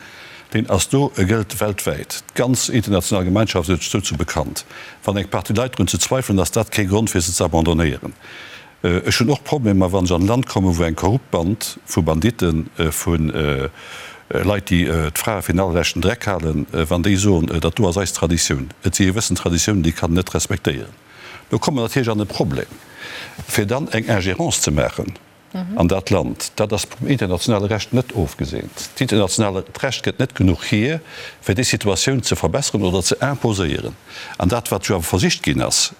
Speaker 5: deen ass do, e gëllt weltwäit. D'ganz international Gemeinschaft huet sech dozou bekannt. Wann eng Partie Leit drun ze zweifelen, ass dat kee Grond fir se ze abandonnéieren. Ech hunn och Problemer, wann ech an e Land kommen, wou eng korrupt Band vu Banditten, vu Leit, déi d'Frae fir den allerleschten Dreck halen, wann déi soen, dat do ass eis Traditioun. Et si gewëssen Traditiounen, déi kann een net respektéieren. Do komme mer natierlech an e Problem, fir dann eng Ingérence ze maachen. an dat Land. Dat ass vum internationale Recht net ofgeseent. D'internationaalt Recht gëtt net genuch hier, fir déi Situatioun ze verbesseren oder ze imposéieren. An dat, wat jo awer versicht ginn ass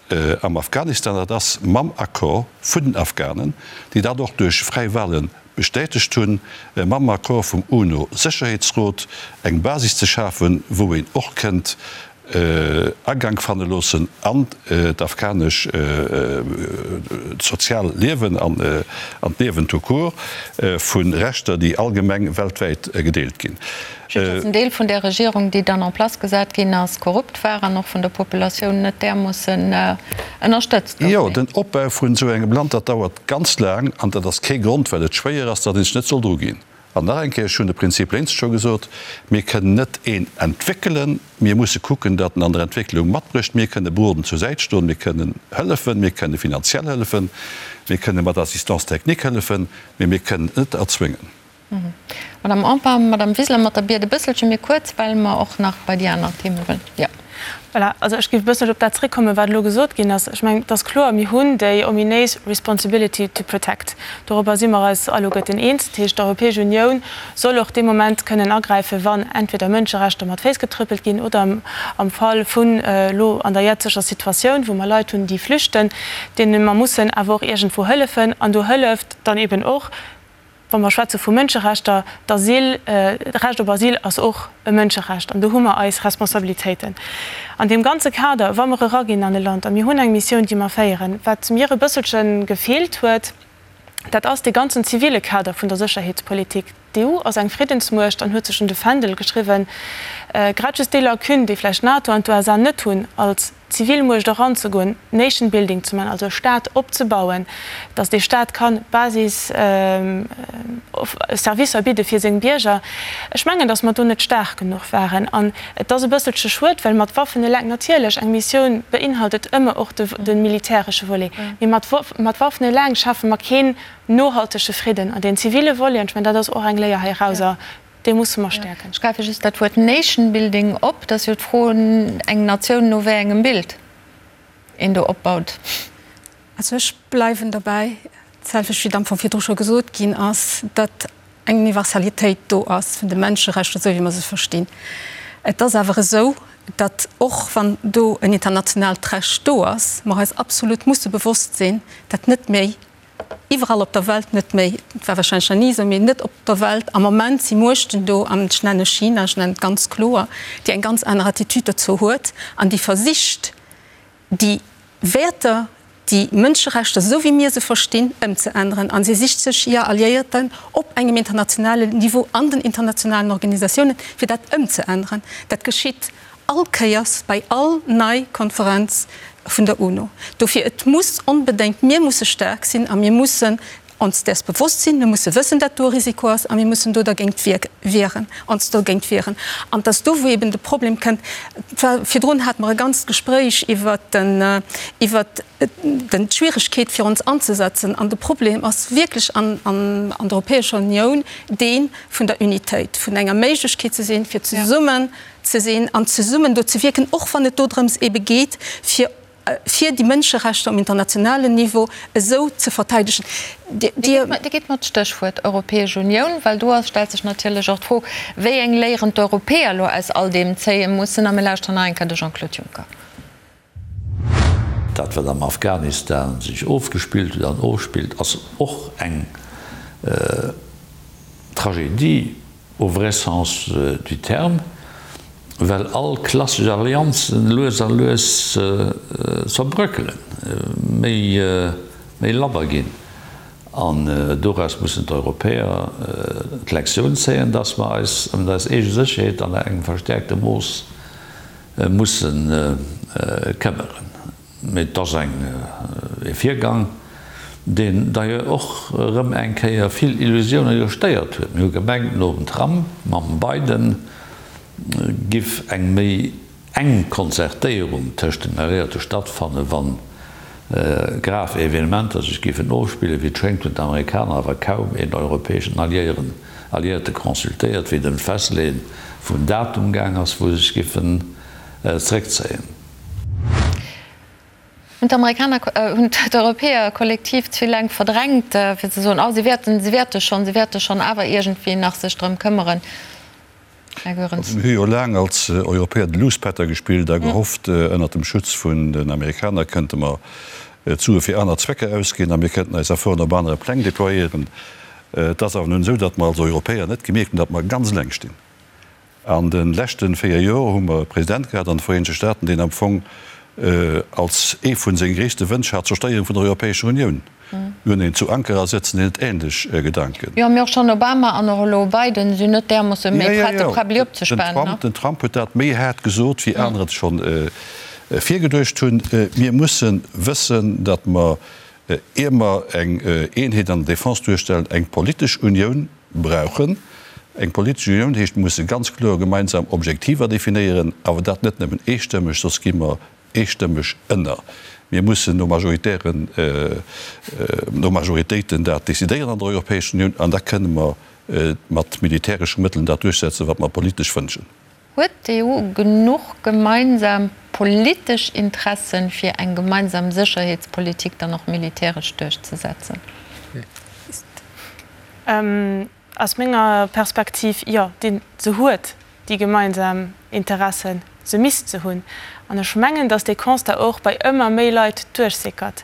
Speaker 5: am Afghanistan, dat ass mam Accord vun den Afghanen, déi dat och duerch fräi Wahle bestätegt hunn, mam Accord vum UNO-Sécherheetsrot eng Basis ze schafen, wou een och kënnt Agank fanne loossen an d'afghanesch sozial Liewen an d'Liewen tout court vu Rechter, déi allgemeng weltwäit gedeelt ginn.
Speaker 2: Just datt en Deel vun där Regierung, déi dann en place gesat ginn ass, korrupt war an och vun der Populatioun net därmoossen ënnerstëtzt gouf.
Speaker 5: Jo, den Opbau vun esou engem Land, dat dauert ganz laang an dat ass kee Grond, well et schwéier ass, datt ee sech net soll druginn. An nach eng Kéier, ech hunn de Prinzip lénks scho gesot, Mir kënnen net een entwéckelen, mir musse kucken, datt en an der Entwécklung matbrécht. Mir kënne berodend zur Säit stoen, mir kënnen hëllefen, mir kënne finanziell hëllefen, mir kënne mat Assistance technique hëllefen, mee mir kënnen et net erzwéngen.
Speaker 2: Madame Empain, Madame Wiseler, mat der Biet e bësselche méi kuerz, well mer och nach bei déi aner Theme wëllen. Jo.
Speaker 9: Voilà, also ech géif e bësselche op dat zréckkommen, wat elo gesot ginn ass. Ech mengen, et ass kloer, mir hunn déi ominéis Responsibility to protect. Dorobber si mer eis alleguerten eens. Dat heescht, d'Europäesch Unioun soll och dee Moment kënnen agräifen, wann entweder Mënscherechter mat Féiss getrëppelt ginn oder am Fall vun elo an der jetzeger Situatioun, wou mer Leit hunn, déi flüchten, deene mer mussen awer och iergendwou hëllefen. An do hëlleft dann eben och, Wa mer schwätze vu Mënscherechter, d'Asyl, d'Recht op Asyl ass och e Mënscherecht an do hu mer eis Responsabilitéiten. An deem ganze Kader, wa mer eraginn an e Land a mir hunn eng Missioun, déi mer féieren, wat mir e bësselche gefeelt huet, dat ass dee ganzen zivile Kader vun der Sécherheetspolitik. D'EU ass eng Friddensmuecht an huet sech un de Fändel geschriwwen, grad just déi Lacune, déi vläicht d'NATO an d'USA net hunn als Zivilmuecht eranzegoen, Nation building ze man, also e Staat opzebauen, datt dee Staat kann Basis Servicer bidde fir seng Bierger. Ech mengen, datt mer do net staark genuch waren. An et ass e bësselche schued, well mat Waffen eleng, natierlech, eng Missioun beinhaltet ëmmer och de militäresche Volet, mee mat Waffen eleng schafe mer keen nohaltege Fridden. An deen zivile Volet, an ech mengen, dat ass och eng Léier heirauser, Dee musse mer stäerken.
Speaker 2: Ech gräife just dat Wuert Nation building op. Et ass jo d'Fro, eng Natioun no wéi engem Bild een do opbaut.
Speaker 8: Also ech bleiwen derbäi, d'selwecht wéi et am Fong virdru scho gesot ginn ass, datt eng Universalitéit do ass vun de Menscherechter, esou wéi mer se verstinn. Et ass awer esou, datt och wann do en internationaalt Recht do ass, mer eis absolut musse bewosst sinn, datt net méi Iwwerall op der Welt net méi, et war wahrscheinlech nach ni esou, mee net op der Welt am Moment si Muechten do, an ech nenne China, ech nennen et ganz kloer, déi eng ganz aner Attitude dozou huet an déi versicht, déi Wäerter, déi Mënscherechter, esou wéi mir se verstinn, ëmzeänneren. A si sicht sech hir Alliéierten op engem internationalen Niveau an den internationalen Organisatiounen, fir dat ëmzeänneren. Dat geschitt all Kéiers bei all nei Konferenz vun der UNO. Dofir, et muss onbedéngt, mir musse staark sinn a mir mussen ons däers bewosst sinn, mir musse wëssen, dat do e Risiko ass a mir mussen do dergéint wieren, ons dogéint wieren. An et ass do, wou eben de Problem kënnt. Et war, virdrun hate mer e ganzt Gespréich iwwert den, iwwert den, d'Schwieregkeet fir ons anzesetzen. An de Problem ass wierklech an, an, an der Europäescher Unioun dee vun der Unitéit, vun enger Méiglechkeet ze sinn, fir zesummen ze sinn an zesummen do ze wierken, och wann et dodrëms ebe geet, fir fir déi Mënscherechter um internationalen Niveau esou ze verteidegen.
Speaker 2: Dir gitt mer d'Stéchwuert Europäesch Unioun, well do ass, stellt sech natierlech och d'Fro, wéi eng Léieren d'Europäer elo aus all deem zéie mussen. A mir lauschteren nach eng Kéier de Jean-Claude Juncker.
Speaker 1: Dat, wat am Afghanistan sech ofgespillt huet an ofspillt, ass och eng Tragedie au vrai sens du terme, well all klassesch Allianzen lues a lues zerbröckelen, méi, méi labber ginn. An doraus mussen d'Europäer d'Lektioun zéien, dass mer eis ëm eis eege Sécherheet an engem verstäerkte Mooss musse këmmeren. Mee et ass eng e Virgang, deen d'ailleurs och erëm eng Kéier vill Illusioune gestéiert huet. Mir hu gemengt, nom Trump, mam Biden giff eng méi enk Konzertéierung tëscht den Alliéierte stattfannen, wa grav Evenementer sech giffen ofspillen. Wéi et schéngt, hunn d'Amerikaner awer kaum een europäeschen Alliéieren, Alliéierte consultéiert, wéi et ëm d'Festleeën vum Datum gaang ass, wou se sech giffen zeréckzéien.
Speaker 2: Hunn d'Amerikaner, hunn d'Europäer kollektiv ze vill laang verdrängt, fir ze soen, oh si wäerten, si wäerte schonn, si wäerte schonn awer iergendwéi nach sech drëm këmmeren?
Speaker 5: Här Goerens. Mir hu jo laang als Europäer de Luuspätter gespillt a gehofft, ënnert dem Schutz vun den Amerikaner kënnte mer d'Sue fir aner Zwecker ausginn a mir kënnten eis Efforten op anere Pläng déployéieren. Et ass awer nun esou, datt mer als Europäer net gemierkt hunn, datt mer ganz eleng stinn. An de leschte 4 Joer hu mer e President gehat an de Vereenegte Staaten, deen am Fong als ee vu senge gréisste Wënsch hat d'Zerstéierung vun der Europäescher Unioun. Mir hunn een zu Ankara sëtzen, deen huet ähnlech Gedanken.
Speaker 2: Jo, mee och schonn Obama an och elo Biden sinn net därmoosse méi prett, de Präbbeli opzespanen.
Speaker 5: Den Trump huet dat méi haart gesot, wéi aner et scho virgeduecht hunn. Mir musse wëssen, datt mer, ier mer eng Eenheet an der Defense duerstellen, eng politesch Unioun brauchen. Eng politesch Unioun heescht, mir musse ganz kloer gemeinsam Objektiver definéieren, awer dat net nëmmen eestëmmeg, soss gi mer eestëmmeg ënner. Mir mussen no majoritären, no Majoritéiten dat decidéieren an der Europäescher Unioun an da kënne mer. mat militäresche Mëttelen dat duerchsetzen, wat mer politesch wënschen.
Speaker 2: Huet d'EU genuch gemeinsam politesch Interessen, fir eng gemeinsam Sécherheetspolitik dann och militäresch duerchzesetzen?
Speaker 9: Aus menger Perspektiv, jo, déi se huet, déi gemeinsam Interessen. Se misst se hunn. An ech mengen, datt dee Constat och bei ëmmer méi Leit duerchsickert.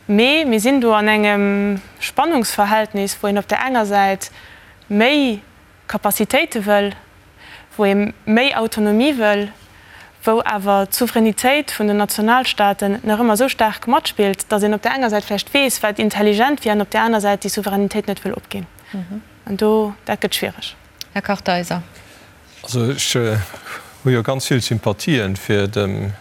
Speaker 9: Mee mir sinn do an engem Spannungsverhältnis, wou een op där enger Säit méi Capacitéite wëll, wou ee méi Autonomie wëll, wou awer d'Souveränitéit vun den Nationalstaaten nach ëmmer esou staark matspillt, datt een op där enger Säit vläicht weess, wat intelligent wier, an op där aner Säit déi Souveränitéit net wëll opginn. An do, dat gëtt schwiereg.
Speaker 2: Här Kartheiser.
Speaker 10: Also ech hu jo ganz vill Sympathien fir dem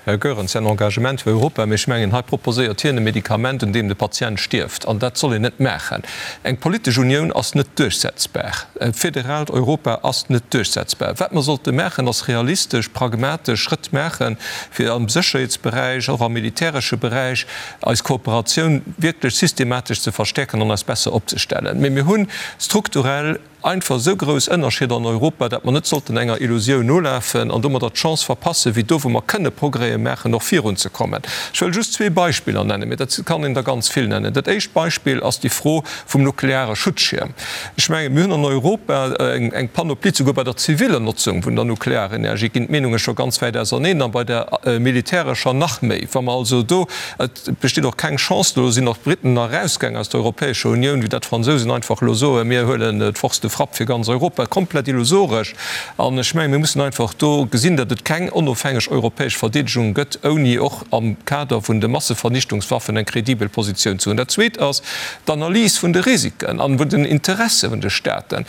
Speaker 10: Här Goerens säin Engagement fir Europa, mee ech mengen, hei proposéiert hien e Medikament, un deem de Patient stierft. An dat soll een net maachen. Eng politesch Unioun ass net duerchsetzbar. E federaalt Europa ass net duerchsetzbar. Wat mer sollte maachen, ass realistesch, pragmatesch Schrëtt maachen, fir am Sécherheetsberäich, och am militäresche Beräich, eis Kooperatioun wierklech systematesch ze verstäerken an eis besser opzestellen. Mee mir hu strukturell einfach esou grouss Ënnerscheeder an Europa, dat mer net sollten enger Illusioun nolafen an domadder d'Chance verpassen, wéi do, wou mer kënne Progrèse maachen, och virunzekommen. Ech wëll just zwee Beispiller nennen, mee dat kann een der ganz vill nennen. Dat éischt Beispill ass déi Fro vum nukleare Schutzschierm. Ech mengen, mir hunn an Europa eng Panoplie, souguer bei der ziviller Notzung vun der Nuklearenergie ginn d'Meenunge scho ganz wäit auserneen a bei der militärescher nach méi. Wa mer also do Et besteet och keng Chance, do sinn och d'Briten nach erausgaang aus der Europäescher Unioun, wéi dat d'Fransousen einfach elo soen, mir huelen d'Force de frappe fir ganz Europa. Komplett illusoresch. An ech mengen, mir mussen einfach do gesinn, datt et keng onofhängeg europäesch Verdeedegung gëtt, ouni och am Kader vun de Massevernichtungswaffen eng kredibel Positioun ze hunn. Dat Zweet ass d'Analys vun de Risiken an vun den Interesse vun de Staaten.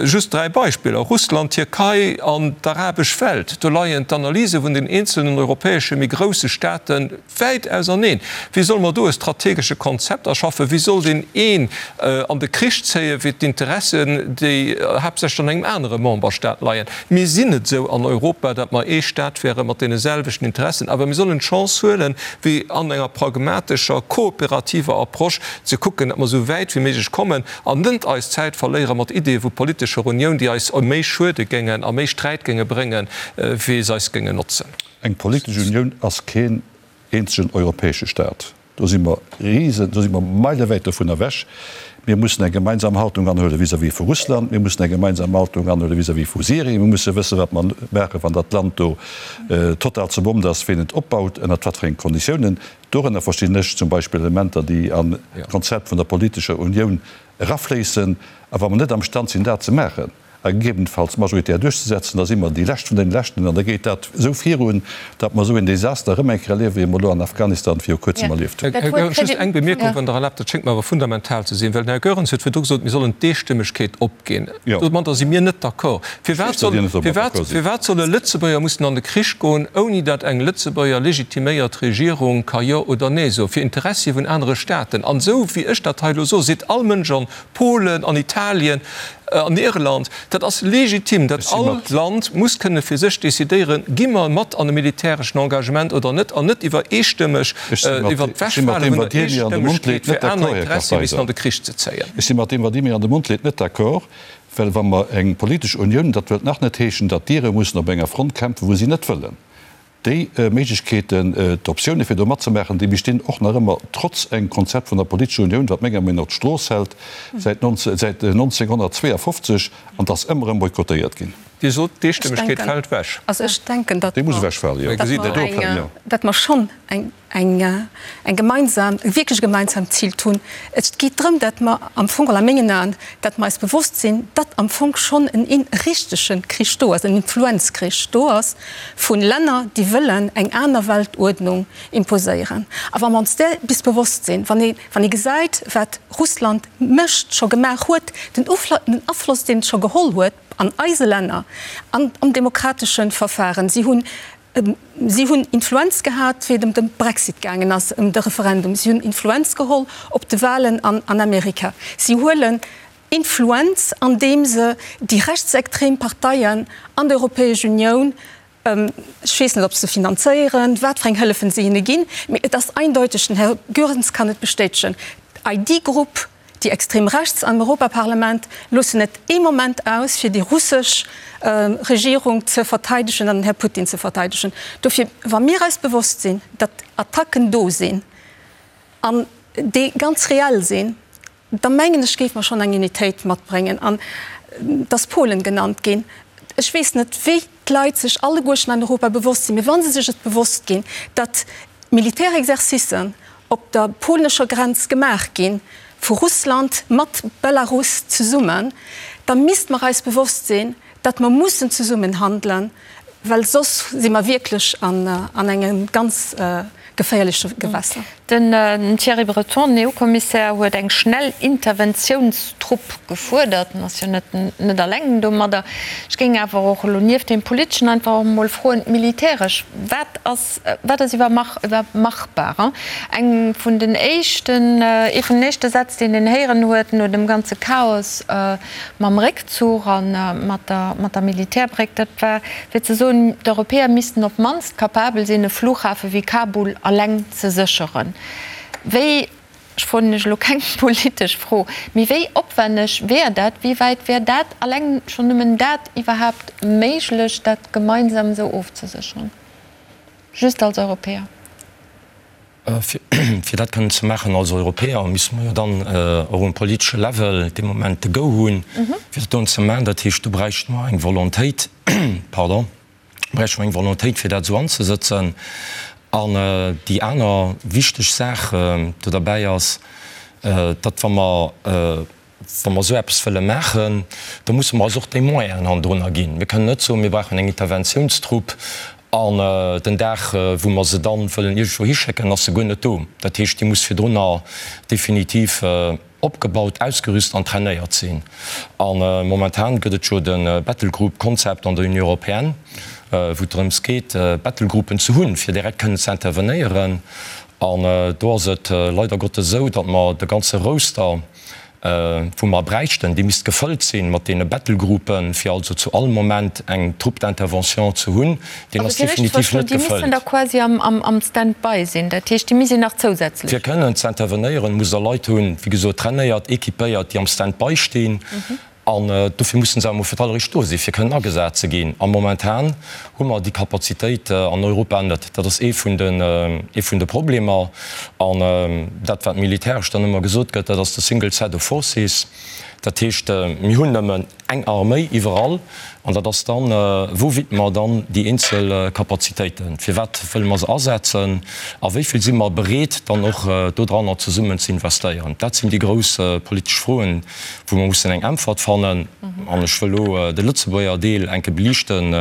Speaker 10: Just 3 Beispiller, Russland, Tierkei an d'arabesch Welt. Do leien d'Analyse vun den eenzelnen europäesche méi grousse Staate wäit auserneen. Wéi solle mer do e strategesche Konzept erschaffen? Wéi soll deen een an de Krich zéien, wéi d'Interessen, déi haaptsächlech an engem anere Memberstaat leien? Mir sinn net esou an Europa, datt mer ee Staat wäre mat deene selwechten Interessen, awer mir sollen d'Chance huelen, wéi an enger pragmatescher, kooperativer Approche ze kucken, datt mer esou wäit wéi méiglech kommen. An net eis Zäit verléiere mat Ideeë vu politescher Unioun, déi eis méi schuede géingen a méi Sträit géinge bréngen, wéi se eis géingen notzen.
Speaker 5: Eng politesch Unioun ass keen eenzegen europäesche Staat. Do si mer Risen, do si mer meilewäit dovun ewech. Mir mussen eng gemeinsam Haltung anhuele vis-à-vis vu Russland. Mir mussen eng gemeinsam Haltung anhuele vis-à-vis vu Syrien. Mir musse wëssen, wat mer maachen, wann dat Land do total zerbommt ass, ween et opbaut, ënnert wat fir enge Konditiounen. Dorënner verstinn ech zum Beispill Elementer, déi an d'Konzept vun der politescher Unioun erafléissen. A wa mer net am Stand sinn, dat ze maachen a gegebenenfalls majoritär duerchzesetzen, da si mer déi Lescht vun deene Leschten an da geet dat esou virun, datt mer esou een Desaster erëm eng Kéier erliewen, wéi mer elo an Afghanistan viru Kuerzem erlieft hunn.
Speaker 10: Här Goerens, just eng Bemierkung, wann Der erlaabt, dat schéngt mer awer fundamental ze sinn, well den Här Goerens huet virdru gesot, mir sollen d'Eestëmmegkeet op. Ginn. Domadder si mir net d'accord. Firwat solle Lëtzebuerger mussen an de Krich goen, ouni datt eng Lëtzebuerger legitiméiert Regierung ka Jo oder Nee soen, fir Interessie vun anere Staaten? An esou wéi ech dat hei elo soen, seet all Mënsch an Polen, an Italien, an Irland, dat ass legitim, datt all Land muss kënne fir sech decidéieren, gi mer mat an e militäreschen Engagement oder net, an net iwwer eestëmmeg, iwwer d'Wechfale vun der Eestëmmegkeet fir aner Interessie missen an de Krich ze zéien.
Speaker 5: Ech si mat deem, wat Dir mir an de Mond leet, net d'accord, well wa mer eng politesch Unioun, dat wëllt nach net heeschen, datt d'Ire mussen op enger Front kämpfen, wou si net wëllen. Déi Méiglechkeeten, d'Optioune fir do matzemaachen, déi bestinn och nach ëmmer, trotz engem Konzept vun der politescher Unioun, wat menger Meenung no d'Strooss hält säit 1952, an 't ass ëmmer erëm boykottéiert ginn.
Speaker 10: Dir sot, d'Eestëmmegkeet fält ewech.
Speaker 8: Also ech denken, datt
Speaker 5: Déi muss ewechfalen, jo.
Speaker 8: mer schonn eng eng gemeinsam, e wierklech gemeinsamt Zil hunn. Et geet drëm, datt mer am Fong, a mengen Aen, datt mer eis bewosst sinn, datt am Fong schonn en richtege Krich do ass, en Influenzkrich do ass vu Länner, déi wëllen eng aner Weltuerdnung imposéieren. A wa mer ons där bis bewosst sinn, wann ee, wann ee gesäit, wat Russland mécht, scho gemaach huet, den Afloss, deen et scho geholl huet an eise Länner, an am demokratesche Verfahren, si hunn Si hunn Influenz gehat, wéi et ëm de Brexit gaangen ass, ëm de Referendum. Si hunn Influenz geholl op de Wahlen an Amerika. Si huelen Influenz, andeem se déi rechtsextrem Parteien an der Europäesch Unioun, ech weess net, ob se finanzéieren, wat fir eng Hëllefen se hinne ginn, mee et ass eindeuteg, den Här Goerens kann et bestätegen, d'ID-Grupp. Déi extrem Rechts am Europaparlament loossen net ee Moment aus, fir déi russesch Regierung ze verteidegen an den Här Putin ze verteidegen. Dofir, wa mir eis bewosst sinn, datt Attacken do sinn an déi ganz reell sinn, da mengen ech, géife mer schonn eng Unitéit matbréngen. An et ass Polen genannt ginn. Ech weess net, wéi d'Leit sech alleguerten an Europa bewosst sinn, mee wa se sech et bewosst ginn, datt Militärexercicen op der polnescher Grenz gemaach gi vu Russland mat Belarus zesummen, da misste mer eis bewosst sinn, datt mer mussen zesummen handelen, well soss si mer wierklech an engem ganz geféierleche Gewässer.
Speaker 2: Den Thierry Breton, den EU-Kommissär, huet eng schnell Interventiounstrupp gefuerdert. En ass jo net net eleng domadder. Ech géing awer och elo nieft deem Politeschen einfach och emol froen, militäresch, wat ass, wat ass iwwer machbar? Eng vun den éischten, ee vun den éischte Sätz, deen een héieren huet no dem ganze Chaos mam Réckzuch a mat der, mat der Militärbréck, dat war fir ze soen, d'Europäer missten op d'mannst capabel sinn, e Flughafe wéi Kabul alleng ze sécheren. Wéi, ech froen lech elo keng politesch Fro, mee wéi opwenneg wär dat, wéi wäit wär dat, alleng schonn nëmmen dat iwwerhaapt méiglech, dat gemeinsam esou ofzesécheren, just als Europäer?
Speaker 3: Fir dat kënnen ze maachen als Europäer, misste mer jo dann och um politesche Level dee Moment de Go hunn, fir dat doen ze maachen. Dat heescht, do bräichte mer eng Volontéit, pardon, bräichte mer eng Volontéit, fir dat esou anzesëtzen. An déi aner wichteg Saach do derbäi ass, datt wa mer, wa mer esou eppes wëlle maachen, da musse mer eis och déi Moyenen hannendrunner ginn. Mir kënnen net soen, mir brauchen eng Interventiounstrupp an den Dag, wou mer se dann wëllen iergendwou hischécken, ass se guer net do. Dat heescht, déi muss virdrunner definitiv opgebaut, ausgerüst an trainéiert sinn. A momentan gëtt et jo de Battlegroup-Konzept an der Union européenne, wou et drëms geet, Battlegroupen ze hunn, fir direkt kënnen ze intervenéieren. An do ass et leider Gottes esou, datt mer de ganze Roster, wou mer bräichten, dee misst gefëllt sinn mat deene Battlegroupen, fir also zu all Moment eng Troupe d'intervention ze hunn, deen ass definitiv net gefëllt.
Speaker 2: Déi missten da quasi am Stand-by sinn, dat heescht, déi misst een nach zousätzlech.
Speaker 3: Fir kënnen ze intervenéieren, musst Der Leit hunn, wéi gesot, trainéiert, équipéiert, déi am Stand-by stinn. An dofir mussen se awer emol fir d'alleréischt do sinn, fir kënnen agesat ze ginn. A momentan hu mer déi Kapazitéit an Europa net. Dat ass ee vun den, ee vun de Problemer. An dat, wat militäresch dann ëmmer gesot gëtt, dat ass de single set of forces. Dat heescht, mir hunn nëmmen eng Arméi iwwerall. An dat ass dann, wou widme mer dann déi eenzel Kapazitéiten? Firwat wëlle mer se asetzen? A wéi vill si mer bereet, dann och dodranner zesummen ze investéieren? Dat sinn déi grouss politesch Froen, wou mer mussen eng Äntwert fannen. An ech wëll elo de Lëtzebuerger Deel enke beliichten,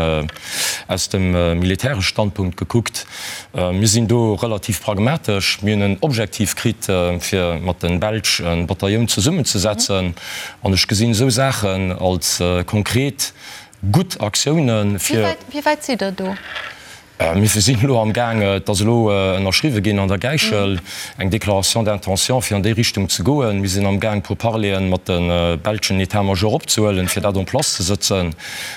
Speaker 3: aus dem militäresche Standpunkt gekuckt. Mir sinn do relativ pragmatesch. Mir hunn en Objektiv kritt, fir mat de Belsch e Batailloun zesummenzesetzen. An ech gesinn esou Saachen als konkret gutt Aktiounen, fir.
Speaker 2: Wéi wäit sidd Der do?
Speaker 3: Mir sinn elo am Gaang, et ass elo ënnerschriwwe ginn an der Gäichel, eng Déclaration d'intention, fir an déi Richtung ze goen. Mir sinn am Gaang, Pourparleren mat de belschen État-major opzehuelen, fir dat en place ze sëtzen.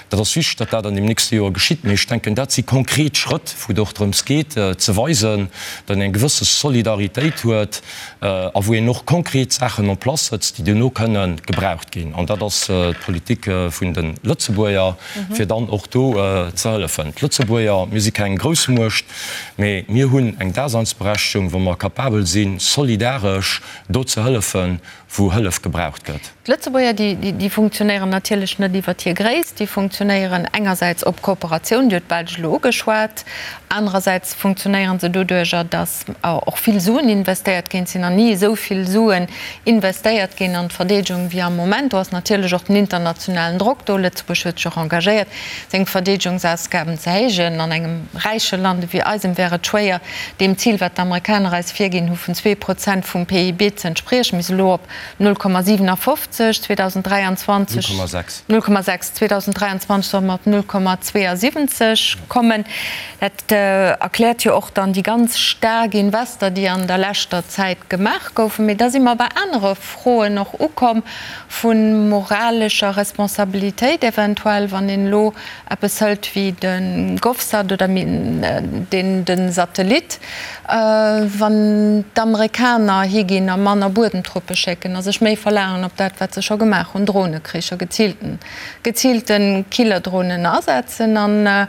Speaker 3: Dat ass wichteg, datt dat an deem nächste Joer geschitt. Mee ech denken, dat si konkret Schrëtt, wou et och drëms geet, ze weisen, datt een eng gewësse Solidaritéit huet a wou een och konkret Saachen en place sëtzt, déi duerno kënnen gebraucht ginn. An dat ass d'Politik vun de Lëtzebuerger. fir dann och do ze hëllefen. D'Lëtzebuerger, mir si keng Groussmuecht, mee mir hunn eng Daseinsberechtegung, wou mer capabel sinn, solidaresch do ze hëllefen, wou Hëllef gebraucht gëtt.
Speaker 2: D'Lëtzebuerger, déi funktionéieren natierlech net iwwert hir Gréisst, déi funktionéieren engersäits op Kooperatioun, Dir hutt d'Belsch elo ugeschwat, anerersäits funktionéiere se doduerjer, datt och vill Suen investéiert ginn. Et sinn nach ni esou vill Suen investéiert ginn an d'Verdeedegung wéi am Moment. Do ass natierlech och den internationalen Drock do. Lëtzebuerg huet sech och engagéiert, seng Verdeedegungsausgaben ze héijen. An engem räiche Land ewéi eisem wär et schwéier, deem Zil, wat d'Amerikaner eis virginn hu vun 2% vum PIB ze entspriechen. Mir si elo op 0,57, 2023, 0,6, 2023 solle mer op 0,72 kommen. Dat erkläert jo och dann déi ganz staark Invester, déi an der leschter Zäit gemaach goufen. Mee da si mer bei anere Froen och ukomm, vu moralescher Responsabilitéit eventuell, wann een elo eppes hëlt wéi de Govsat oder. deen de Satellit, wann d'Amerikaner higinn a manner Buedemtruppe schécken a sech méi verlaangen op dat, wat se scho gemaach hunn, Dronekricher, geziilten, geziilte Killerdronen asetzen? An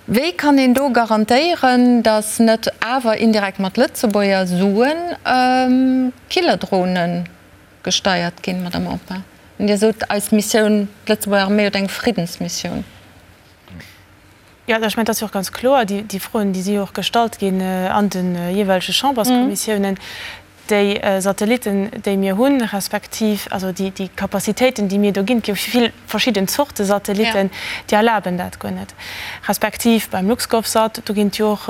Speaker 2: wéi kann een do garantéieren, datt net awer indirekt mat Lëtzebuerger Suen Killerdronen gesteiert ginn, Madame Empain? Dir sot, eis Missioun, d'Lëtzebuerger Arméi huet eng Friddensmissioun.
Speaker 9: Jo, ech mengen, et ass jo och ganz kloer, déi Froen, déi si jo och gestallt ginn an de jeeweilege Chamberskommissiounen, déi Satellitten, déi mir hunn, respektiv also déi Capacitéiten, déi mir do ginn, et gi jo vill verschidden Zorte Satellitten, déi erlaben dat guer net, respektiv beim LuxGovSat, do ginn et jo och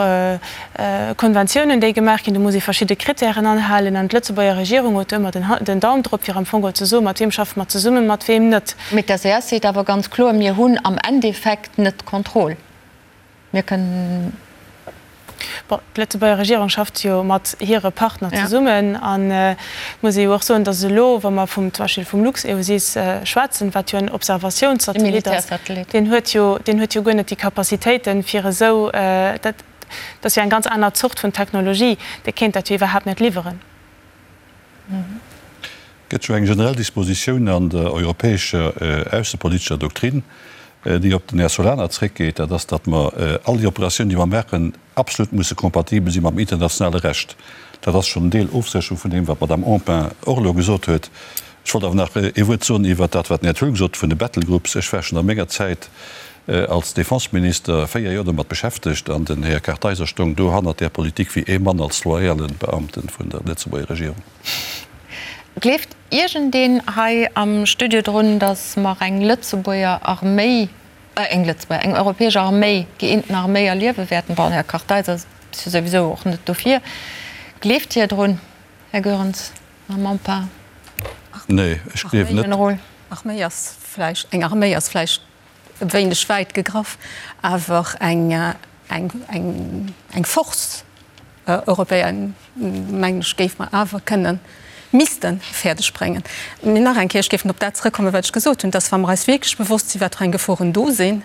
Speaker 9: Konventiounen, déi gemaach ginn, do muss ee verschidde Kritären anhalen an d'Lëtzebuerger Regierung huet do ëmmer den Daum drop, fir am Fong geholl ze soen, mat wiem schaffe mer zesummen, mat weem net.
Speaker 2: Mee d'SES seet awer ganz kloer, Mir hunn am Endeffekt net d'Kontroll. Mir kënnen.
Speaker 9: Bon, d'Lëtzebuerger Regierung schafft jo mat hire Partner zesummen an et muss ee jo och soen, datt elo, wa mer vum, zum Beispill vum LuxEOSys schwätzen, wat jo en Observatiounssatellit ass, deen huet jo, deen huet jo guer net déi Capacitéiten, fir esou, dat ass jo eng ganz aner Zort vun Technologie, dee kéint dat jo iwwerhaapt net liwweren.
Speaker 5: Et gëtt jo eng generell Dispositioun an der europäescher aussepolitescher Doktrin, déi op den Här Solana zréckgeet, dat ass, datt mer all déi Operatiounen, déi mer maachen, absolut musse kompatibel si mam internationale Recht. Dat ass schonn en Deel Ofsécherung vun deem, wat d'Madame Empain och elo gesot huet. Ech wollt awer nach ee Wuert soen iwwert dat, wat den Här Thill gesot huet vun de Battlegroups. Ech war schonn a menger Zäit als Defenseminister 4 Joer domat beschäftegt an den Här Kartheiser stoung do hannert där Politik wéi ee Mann als loyale Beamte vun der Lëtzebuerger Regierung.
Speaker 2: Gleeft iergendeen hei am Studio drun, datt mer eng Lëtzebuerger Arméi, eng Lëtzebuerger, eng europäesch Arméi, gëeenten Arméi erliewe wäerten? Bon, Här Kartheiser ass jo souwisou och net dofir. Gleeft Dir drun, Här Goerens, Madame Empain?
Speaker 5: Nee, ech gleewen net.
Speaker 8: Arméi ass vläicht, eng Arméi ass vläicht e wéineg wäit gegraff, awer eng, eng, eng, eng Force européenne, mengen ech, géife mer awer kënnen, misste fäerdeg bréngen. Mee nach eng Kéier, ech géif op dat zrëckkommen, wat ech gesot hunn, dass, wa mer eis wierklech bewosst sinn, wat fir eng Geforen do sinn,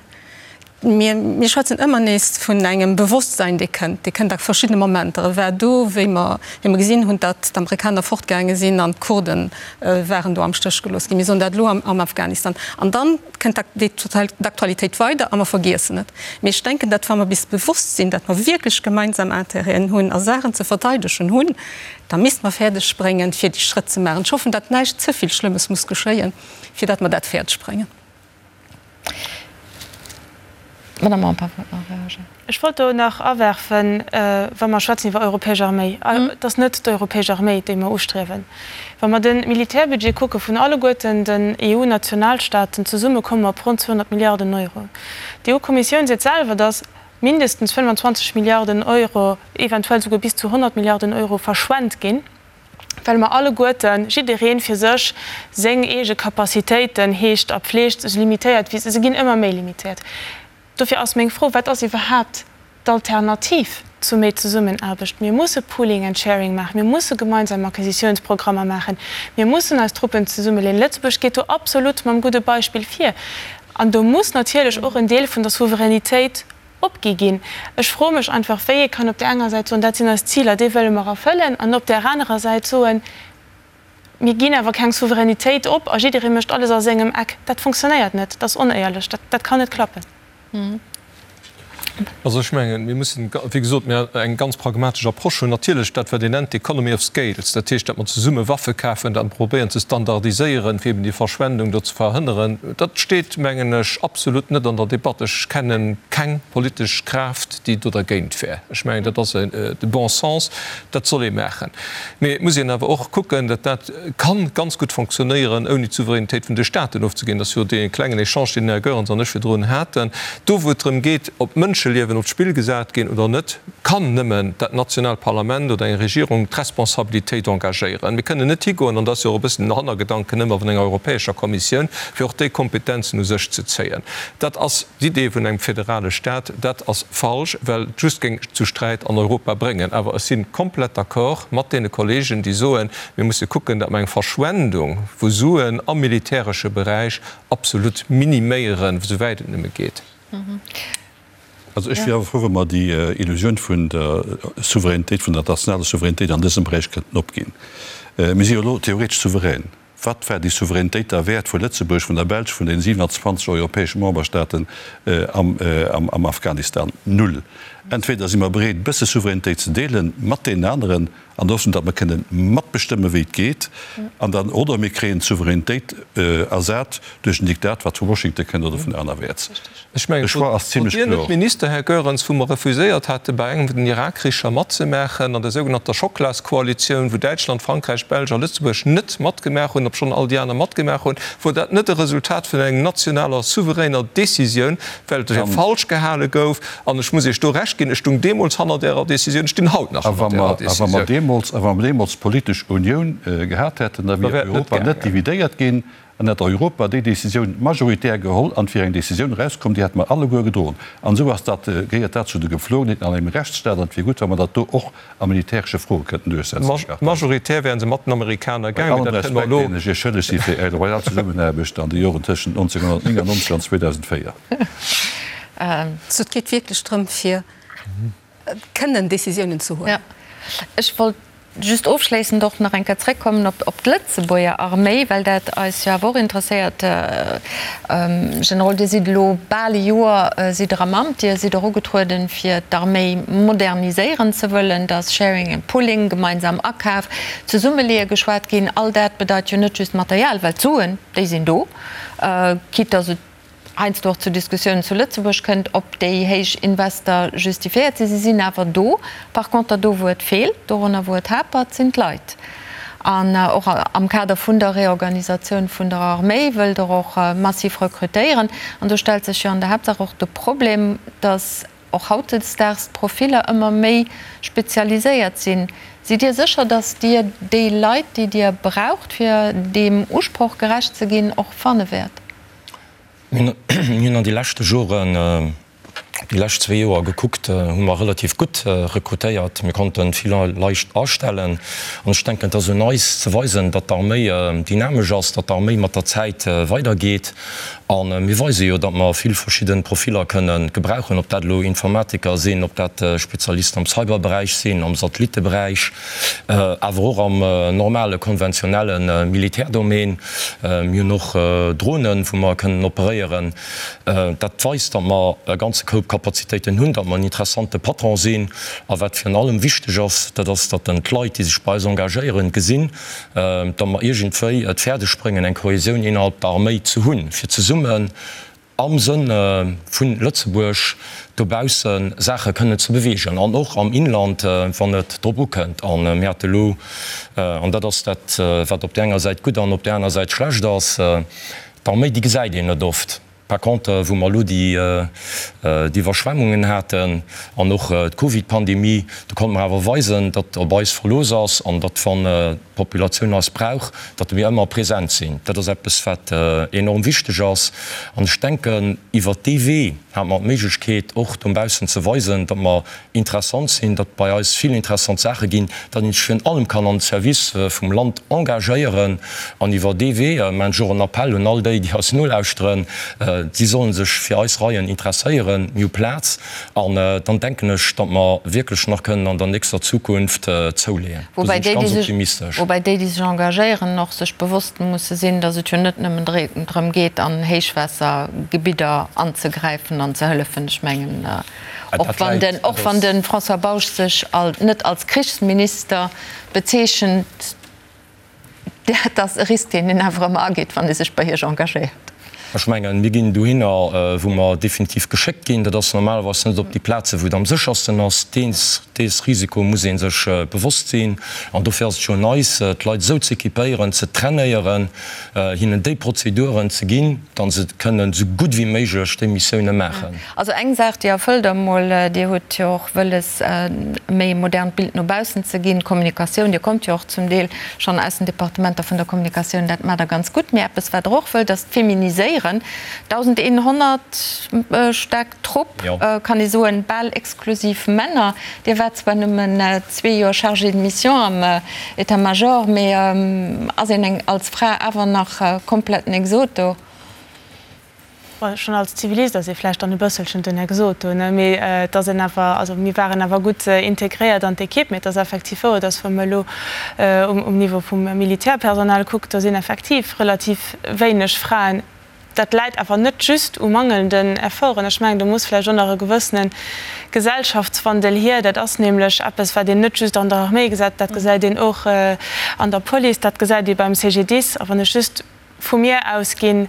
Speaker 8: mir, mir schwätzen ëmmer nees vun engem Bewosstsein, dee kënnt, dee kënnt a verschiddene Momenter. E war do, wéi mer, wéi mer gesinn hunn, datt d'Amerikaner fortgaange sinn an d'Kurde waren do am Stéch gelooss ginn. Mir soen dat elo am, am Afghanistan. An dann kënnt d'Aktualitéit weider a mer vergiessen et. Mee ech denken, datt wa mer bis bewosst sinn, datt mer wierklech gemeinsam Intérêten hunn a Saachen ze verteidegen hunn, da misste mer fäerdeg bréngen, fir déi Schrëtt ze maachen. Ech hoffen, datt näischt ze vill Schlëmmes muss geschéien, fir datt mer dat fäerdeg bréngen.
Speaker 2: Madame Empain wollt nach reagéieren.
Speaker 9: Ech wollt do nach awerfen, wa mer schwätzen iwwer europäesch Arméi, et ass net d'europäesch Arméi, déi mer ustriewen. Wa mer de Militärbudget kucke vun alleguerten den EU-Nationalstaaten zesumme komme mer op ronn 200 Milliarden Euro. D'EU-Kommissioun seet selwer, datt mindestens 25 Milliarden Euro, eventuell souguer bis zu 100 Milliarden Euro verschwent ginn, well mer alleguerten, jidderee fir sech, seng eege Capacitéiten heegt a pfleegt, esou limitéiert wéi se, se ginn ëmmer méi limitéiert. Dofir ass meng Fro, Wat ass iwwerhaapt d'Alternativ zu méi Zesummenaarbecht? Mir musse Pooling and Sharing maachen, mir musse gemeinsam Acquisitiounsprogrammer maachen, mir mussen eis Truppen zesummeleeën. Lëtzebuerg geet do absolut mam gudde Beispill vir. An do muss natierlech och en Deel vun der Souveränitéit opgi ginn. Ech froe mech einfach, wéi ee kann op där enger Säit soen, dat sinn eis Ziler, déi wëlle mer erfëllen, an op där anerer Säit soen, Mir ginn awer keng Souveränitéit op a jidderee mécht alles a sengem Eck. Dat funktionéiert net, dat ass onéierlech, dat kann net klappen.
Speaker 10: Also ech mengen, mir mussen, wéi gesot, mir eng ganz pragmatesch Approche hunn. Natierlech dat, wat een nennt d'Economy of scales, dat heescht, datt mer zesumme Waffe kafen, datt mer probéieren ze standardiséieren, fir eben déi Verschwendung do ze verhënneren, dat steet, mengen ech, absolut net an der Debatt. Ech kenne keng politesch Kraaft, déi do dergéint wär. Ech mengen, dat ass de bon sens, dat soll ee maachen. Mee et muss een awer och kucken, datt dat ka ganz gutt fonctionnéieren, ouni d'Souveränitéit vun de Staaten ofzeginn. Dat ass jo dee klengen Echange, deen den Här Goerens an ech virdrun haten. Do, wou et drëm geet, ob Mënscheliewen op d'Spill gesat ginn oder net, kann nëmmen dat nationaalt Parlament oder eng Regierung d'Responsabilitéit engagéieren. Mir kënnen net higoen, an dat ass jo och e bëssen den Hannergedanken ëmmer vun enger Europäescher Kommissioun, fir och déi Kompetenzen u sech ze zéien. Dat ass d'Idee vun engem federale Stat. Dat ass falsch, well et just géing zu Sträit an Europa bréngen. Awer ech si komplett d'accord mat deene Kollegen, déi soen, mir musse kucken, datt mer eng Verschwendung vu Suen am militäresche Beräich absolut miniméieren, esouwäit et nëmme geet.
Speaker 5: Also ech wier awer frou, wa mer déi Illusioun vun der Souveränitéit, vun der nationaler Souveränitéit an dësem Beräich kënnten opginn. Mir si jo elo theoretesch souverän. Wat war déi Souveränitéit da wäert vu Lëtzebuerg, vun der Belsch, vun den 27 europäesche Memberstaaten am Afghanistan? Null. Entweder si mer bereet, e bësse Souveränitéit ze deele mat deenen aneren, an der Hoffnung, datt mer kënnen matbestëmmen, wéi et geet, an dann, oder mir kréien d'Souveränitéit ersat duerch en Diktat, wat vu Washington kënnt oder vun anerwäerts.
Speaker 10: Ech mengen,
Speaker 5: De Choix ass
Speaker 10: wor
Speaker 5: zimlech
Speaker 10: Dir net
Speaker 5: kloer.
Speaker 10: Minister, Här Goerens, wou mer refuséiert hate bei engem vun den Irakkricher matzemaachen, an der sougenannter Schocklaskoalitioun, wou Däitschland, Frankräich, Belsch a Lëtzebuerg net matgemaach hunn, obschonn all déi aner matgemaach hunn, wor dat net e Resultat vun engem nationaler, souveräner Décisioun, well et fir falsch gehale gouf? An ech muss Iech do Recht ginn, ech stung deemools hannert Ärer Décisioun, ech stinn haut nach
Speaker 5: A wa
Speaker 10: hannert Ärer
Speaker 5: mer, a wa mer
Speaker 10: Décisioun.
Speaker 5: deemools, a wa mer deemools d'politesch Unioun gehat hätten, da
Speaker 10: Da
Speaker 5: wier
Speaker 10: wär et net
Speaker 5: Europa net
Speaker 10: gaangen.
Speaker 5: dividéiert ginn an hätt Europa déi Décisioun majoritär geholl an et wier eng Décisioun erauskomm, déi hätte mer alleguer gedroen. An esou ass dat, gehéiert dat zu de Gepflogenheeten an engem Rechtsstaat an et wier gutt, wa mer dat do och a militäresche Froe kënnten duerchsetzen, Här Kartheiser.
Speaker 10: Majoritär wären se mat den Amerikaner
Speaker 5: Bei
Speaker 10: gaangen,
Speaker 5: allem
Speaker 10: mee dat kënne mer
Speaker 5: Respekt,
Speaker 10: elo.
Speaker 5: deen ech Iech schëlleg si fir Är loyal Zesummenaarbecht an de Joren tëschent 1999 an 2004.
Speaker 8: Also et geet wierklech drëm, fir kënnen Décisiounen ze huelen.
Speaker 2: Ech wollt just ofschléissend och nach eng Kéier zréckkommen op d'Lëtzebuerger Arméi, well dat eis jo awer och interesséiert. Generol, Dir sidd elo bal e Joer sidd Der am Amt. Dir sidd och ugetrueden, fir d'Arméi moderniséieren ze wëllen. Da ass Sharing and Pooling, gemeinsam Akaf, Zesummeleeë geschwat ginn. All dat bedeit jo net just Material, well d'Suen, déi sinn do, quitte dass et heiansdo och zu Diskussiounen zu Lëtzebuerg kënnt, ob déi héich Invester justifiéiert sinn. Si sinn awer do. Par conter do wou et feelt, dorunner wou et hapert, sinn d'Leit. An och am Kader vun der Reorganisatioun vun der Arméi wëllt Der och massiv rekrutéieren. An do stellt sech jo an der Haaptsaach och de Problem, datt och hautdesdaags d'Profiller ëmmer méi spezialiséiert sinn. Sidd Dir sécher, datt Dir déi Leit, déi Dir braucht, fir deem Usproch gerecht ze ginn, och fanne wäert?
Speaker 3: Mir hunn an de leschte Joren, déi lescht zwee Joer gekuckt, hu mer relativ gutt rekrutéiert. Mir konnte vill Leit astellen. An ech denken, et ass un eis ze weisen, datt d'Arméi dynamesch ass, datt d'Arméi mat der Zäit weidergeet. A mir weise jo, datt mer vill verschidde Profiller kënne gebrauchen, ob dat elo Informatiker sinn, ob dat Spezialisten am Cyberberäich sinn, am Satellitteberäich, awer och am normale konventionelle Militärdomaine. Mir hunn och Dronen, wou mer kënnen operéieren. Dat weist, datt mer e ganze Koup Kapazitéiten hunn, datt mer en interessante Patron sinn. A wat virun allem wichteg ass, dat ass, datt d'Leit, déi sech bei eis engagéieren, gesinn, datt mer iergendwéi et fäerdeg bréngen, eng Kohäsioun innerhalb der Arméi ze hunn, fir zesummen am Sënn vu Lëtzebuerg dobausse Saache kënnen ze beweegen an och am Inland, wann et drop ukënnt. A mir hate elo, an dat ass dat, wat op där enger Säit gutt an op där aner Säit schlecht ass, d'Arméi, déi gesäit een net oft. Par contre, wou mer elo déi Iwwerschwemmungen haten an och d'Covidpandemie, do konnte mer awer weisen, datt op eis Verlooss ass an datt, wann d'Populatioun eis brauch, datt mir ëmmer present sinn. Dat ass eppes, wat enorm wichteg ass. An ech denken, iwwert dee Wee hate mer d'Méiglechkeet, och dobaussen ze weisen, datt mer interessant sinn, datt bei eis vill interessant Saache ginn, datt een sech virun allem kann an de Service vum Land engagéieren. An iwwer dee Wee maachen ech och en Appell un all déi, déi eis nolauschteren, si solle sech fir eis Reien interesséieren. Mir hu Plaz. An dann denken ech, datt mer wierklech nach kënnen an der nächster Zukunft zouleeën. Do sinn ech ganz optimistesch.
Speaker 2: Woubäi déi, déi sech engagéieren, och sech bewosst musse sinn, datt et jo net nëmmen drëm geet, an Héichwaassergebidder anzegräifen an ze hëllefen. Ech mengen, och wann den, och wann de François Bausch sech net als Krichsminister bezeechent, Dat ass e Risk, deen een awer ëmmer ageet, wann ee sech bei Iech engagéiert.
Speaker 3: Ech mengen, mir ginn dohinner, wou mer definitiv geschéckt ginn. Dat ass normalerweis net op déi Plazen, wou et am séchersten ass. Dees Risiko muss ee sech bewosst sinn. An dofir ass et jo un eis, d'Leit esou z'équipéieren, ze trainéieren, hinnen déi Prozeduren ze ginn, datt se kënnen esou gutt wéi méiglech déi Missioune maachen.
Speaker 2: Also eng Saach, déi erfëllt Der emol, Dir hutt jo och wëlles, e méi modernt Bild no baussen ze ginn, d'Kommunikatioun. Dir kommt jo och zum Deel schonn aus den Departementer vun der Kommunikatioun, dat maacht Der ganz gutt. Mee eppes, wat Der och wëllt, ass d'Feminiséieren. 1.100 staark Trupp, kann ee soen, bal exklusiv Männer. Dir waart zwar nëmmen zwee Joer Chargé de mission am État-major, mee ass een als Fra awer nach kompletten Exot do?
Speaker 9: Schonn als Zivilist ass ee vläicht dann e bësselchen den Exot do, ne? Mee et ass een awer, also mir waren awer gutt integréiert an d'Ekipp. Mee et ass effektiv wouer, dass wa mer elo um Niveau vum Militärpersonal kuckt, do sinn effektiv relativ wéineg Fraen. Dat läit awer net just u mangelnden Efforten. Ech mengen, do muss vläicht och nach e gewëssene Gesellschaftswandel hier. Dat ass nämlech eppes, wat een net just an der Arméi gesäit, dat gesäit een och an der Police, dat gesäit ee beim CGDIS. A wann ech just vu mir ausginn,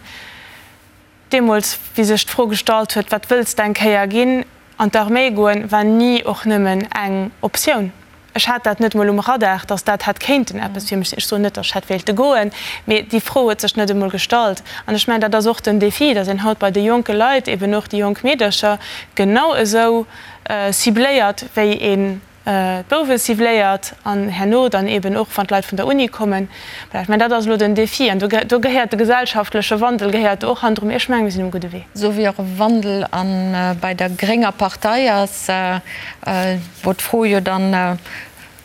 Speaker 9: deemools, wéi sech d'Fro gestallt huet, Wat wëlls de eng Kéier ginn? An d'Arméi goen war ni och nëmmen eng Optioun. Ech hat dat net emol um Radar, datt dat hätt kéinten eppes fir mech sinn. Ech soen net, datt ech hätt wéilte goen, mee déi Fro huet sech net emol gestallt. An ech mengen, dat ass och den Défi, datt een haut bei de jonke Leit, eben och déi jonk Meedercher, genau esou cibléiert, wéi een d'Bouwe cibléiert an herno dann eben och, wann d'Leit vun der Uni kommen. Voilà, ech mengen, dat ass elo den Défi an do gehéiert de gesellschaftleche Wandel gehéiert do och hannendru. Mee ech mengen, mir sinn um gudde Wee.
Speaker 2: Esou wéi och e Wandel a bei der grénger Partei ass, wou d'Fro jo dann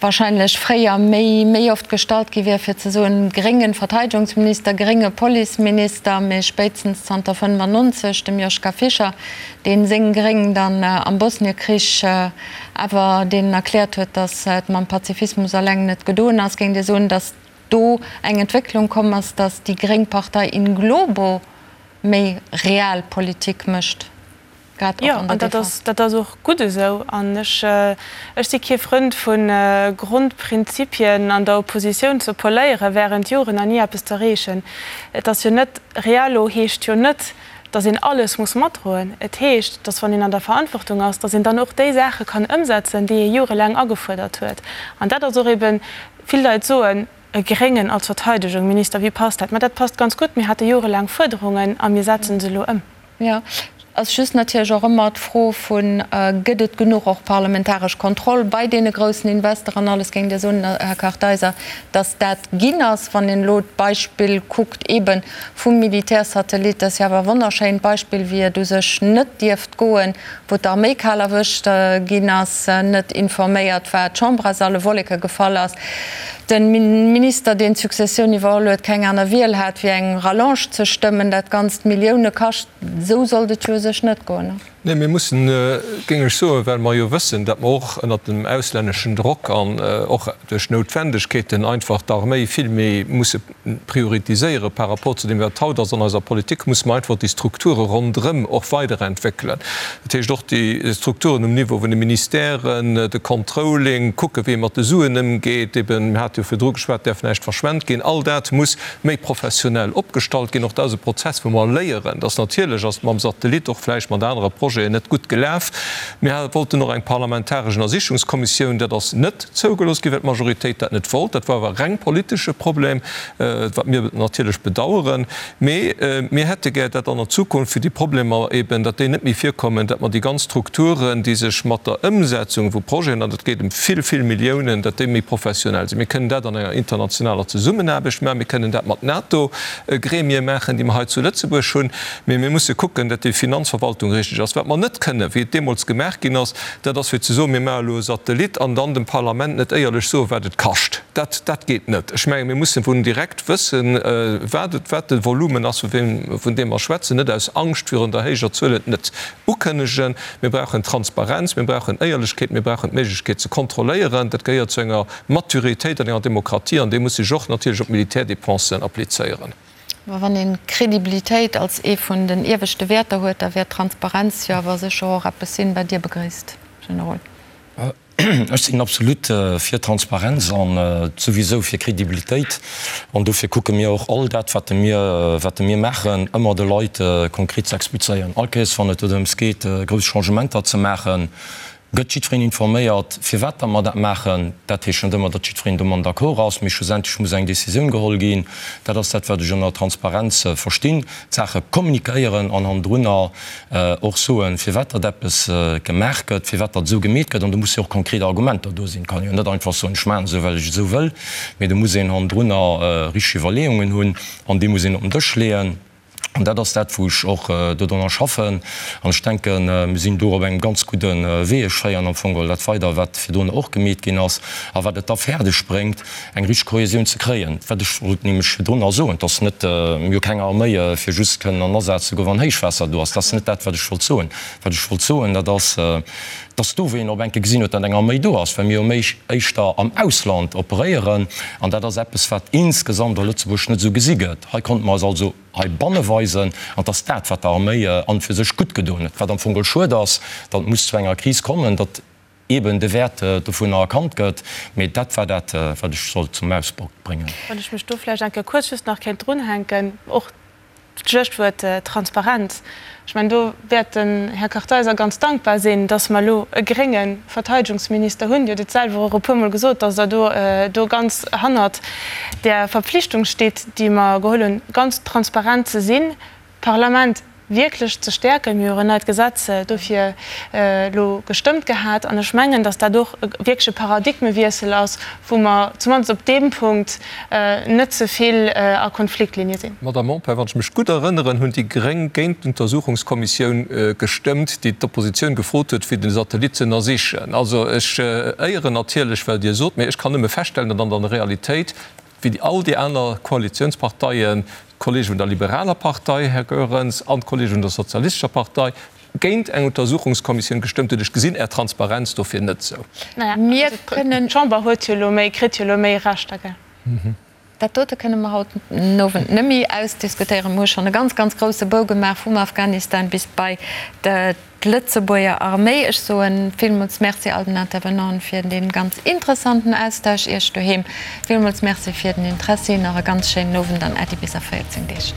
Speaker 2: wahrscheinlech fréier méi méi oft gestallt gi wier, fir ze soen, grénge Verteidegungsminister, grénge Policeminister, mee spéitstens zanter 95 dem Joschka Fischer, dee seng Gréng dann am Bosniekrich awer deenen erkläert huet, datt et mam Pazifismus alleng net gedoen ass, géing Dir soen, datt do eng Entwécklung komm ass, datt déi gréng Partei in globo méi Realpolitik mécht, grad och
Speaker 9: Jo,
Speaker 2: an der
Speaker 9: an dat
Speaker 2: Defense?
Speaker 9: ass, dat ass och gutt esou. An ech, ech si kee Frënd vu Grondprinzipien an der Oppositioun ze poléiere während Joren an ni eppes z'erreechen. Et ass jo net, Realo heescht jo net, dass een alles muss matdroen. Et heescht, dass wann een an der Verantwortung ass, dass een dann och déi Saache kann ëmsetzen, déi ee jorelaang agefuerdert huet. An dat ass och eben, vill Leit soen, e Gréngen als Verteidegungminister, wéi passt dat? Mä dat passt ganz gutt. Mir hate jorelaang Fuerderungen a mir setzen se elo ëm.
Speaker 2: Jo, ass just natierlech och ëmmer d'Fro vun, Gëtt et genuch och parlamentaresch Kontroll bei deene groussen Investor an alles? Géingt Dir soen, Här Kartheiser, dass dat ginn ass, wann een elo d'Beispill kuckt eebe vum Militärsatellit? Dat ass jo awer e wonnerschéint Beispill, wéi et u sech net dierft goen, wou d'Arméi kal erwëscht ginn ass, net informéiert war, d'Chamber aus alle Wolleke gefall ass, de Minister, deen d'Successioun iwwerholl huet, keng aner Wiel hat, wéi eng Rallonge ze stëmmen, dat Ganzt Millioune kascht. Esou sollt et jo u sech net goen.
Speaker 10: Nee, mir mussen, géing ech soen, well mer jo wëssen, datt mer och ënnert dem auslänneschen Drock an och duerch Noutwendegkeeten einfach d'Arméi vill méi musse prioritiséiere par rapport zu deem, wat haut ass an eiser Politik, musse mer einfach déi Strukture ronderëm och weiderentwéckelen. Dat heescht och déi Strukturen um Niveau vun de Ministèren, de Controlling, kucke wéi ee mat de Suen ëmgeet, eben, mir hate jo virdru geschwat, däerf näischt verschwent ginn, all dat muss méi professionell opgestallt ginn. Och dat ass e Prozess, wou mer léieren, dass natierlech ass et mam Satellit, och vläicht mat anere Projeten, net gutt gelaf. Mir wollten och eng parlamentaresch Ënnersichungskommissioun. Dat ass net zougelooss ginn, well d'Majoritéit dat net wollt. Dat war awer reng politesche Problem, wat mir natierlech bedauern. Mee mir hätte gär, dat an der Zukunft, fir déi Problemer eben, datt déi net méi virkommen, datt mer déi ganz Strukturen, déi sech mat der Ëmsetzung vu Projeten, an et geet ëm vill, vill Milliounen, datt déi méi professionell sinn. Mir kënnen dat an enger internationaler Zesummenaarbecht maachen, mir kënnen dat mat NATO-Gremie maachen, déi mer hei zu Lëtzebuerg hunn, mee mir musse kucken, datt déi Finanzverwaltung richteg ass. Wat mer net kënnen, wéi et deemools gemaach ginn ass, dat ass fir ze soen, mir maache elo e Satellit an dann dem Parlament net éierlech soen, wat et kascht. Dat, dat geet net. Ech menge mir mussen vun direkt wëssen, wat et, wat de Volumen ass, vun deem mer schwätzen, net aus Angscht virun der héijer Zuel et net ukënnegen. Mir brauchen Transparenz, mir brauchen Éierlechkeet, mir brauchen d'Méiglechkeet ze kontrolléieren. Dat gehéiert zu enger Maturitéit an enger Demokratie an déi muss sech och natierlech op d'Militärdépensen applizéieren.
Speaker 2: Mä wann een Kredibilitéit als ee vun den ieweschte Wäerter huet, da wäert Transparenz jo awer sécher och eppes sinn, wat Dir begréisst, Generol.
Speaker 3: Ech sinn absolut fir Transparenz an souwisou fir Kredibilitéit. An dofir kucke mir och all dat, wat mir, wat mir maachen, ëmmer de Leit konkret ze explizéieren. All Kéiers, wann et dorëms geet, grouss Changementer ze maachen, gëtt jiddwereen informéiert, firwat datt mer dat maachen. Dat heescht net ëmmer, datt jiddwereen domat d'accord ass, mee schlussendlech muss eng Décisioun geholl ginn. Dat ass dat, wat ech ënner Transparenz verstinn, d'Saache kommunikéieren an hannendrunner och soen, firwat datt eppes gemaach gëtt, firwat datt esou gemeet gëtt. An do musse jo och konkret Argumenter do sinn. Et kann een jo net einfach soen, ech maachen esou, well ech esou wëll, mee do muss een hannendrunner richteg Iwwerleeungen hunn an déi muss een op den Dësch leeën. An dat ass dat, wou ech och dodrunner schaffen. An ech denken, mir sinn do op engem ganz gudde Wee. Ech féieren am Fong geholl dat weider, wat virdrun och gemeet ginn ass a wat et da fäerdeg bréngt, eng richteg Kohäsioun ze kréien. Wat ech wollt nämlech virdrun nach soen, et ass net, mir hu keng Arméi, fir just kënnen an Asaz ze goen, wann Héichwaasser do ass. Dat ass net dat, wat ech wollt soen. Wat ech wollt soen, dat ass, dass do, wéi een op eng Kéier gesinn huet, datt eng Arméi do ass, well mir jo méi éischter am Ausland operéieren, an dat ass eppes, wat insgesamt a Lëtzebuerg net esou gesi gëtt. Hei konnte mer eis also heibanne weisen, an et ass dat, wat der Arméi an fir sech gutt gedoen huet. Wat am Fong geholl schued ass, datt et muss zu enger Kris kommen, datt eeben de Wäert dovunner erkannt gëtt. Mee dat war dat, wat ech sollt zum Ausdrock bréngen.
Speaker 9: Wann ech mech do vläicht eng Kéier kuerz just nach kéint drunhänken, och D'Schluechtwuert Transparenz, ech mengen, do wäert den Här Kartheiser ganz dankbar sinn, dass mer elo e grénge Verteidegungsminister hunn. Dir hutt et selwer och e puermol gesot, dass Der do do ganz hannert där Verpflichtung stitt, déi mer geholl hunn, ganz transparent ze sinn, d'Parlament wierklech ze stäerken. Mir hu jo en neit Gesetz dofir elo gestëmmt gehat. An ech mengen, dass dat och wierklech e Paradigmewiessel ass, wou mer zumindest op deem Punkt net ze vill a Konfliktlinie sinn.
Speaker 10: Madame Empain, wann ech mech gutt erënneren, hunn déi Gréng géint d'Untersuchungskommissioun gestëmmt, déi d'Oppositioun gefrot huet, fir den Satellit ze ënnersichen. Also ech éieren natierlech, wat Dir sot, mee ech kann nëmme feststellen, datt an der Realitéit, wéi all déi aner Koalitionsparteien, d'Kollege vun der liberaler Partei, Här Goerens, an d'Kollege vun der sozialistescher Partei, géint eng Untersuchungskommissioun gestëmmt huet. Ech gesinn Är Transparenz dofir net esou.
Speaker 2: Mir kënnen.
Speaker 9: D'Chamber huet jo elo méi, kritt jo elo méi Rechter, gell?
Speaker 2: Dat dote kënne mer haut den Owend net méi ausdiskutéieren. Mir hu schonn e ganz, ganz grouse Bou gemaach vum Afghanistan bis bei d'Lëtzebuerger Arméi. Ech soe villmools Merci all den Intervenanten fir dee ganz interessanten Austausch. Iech doheem villmools Merci fir den Interessi. Nach e ganz schéinen Owend an Äddi bis a 14 Deeg.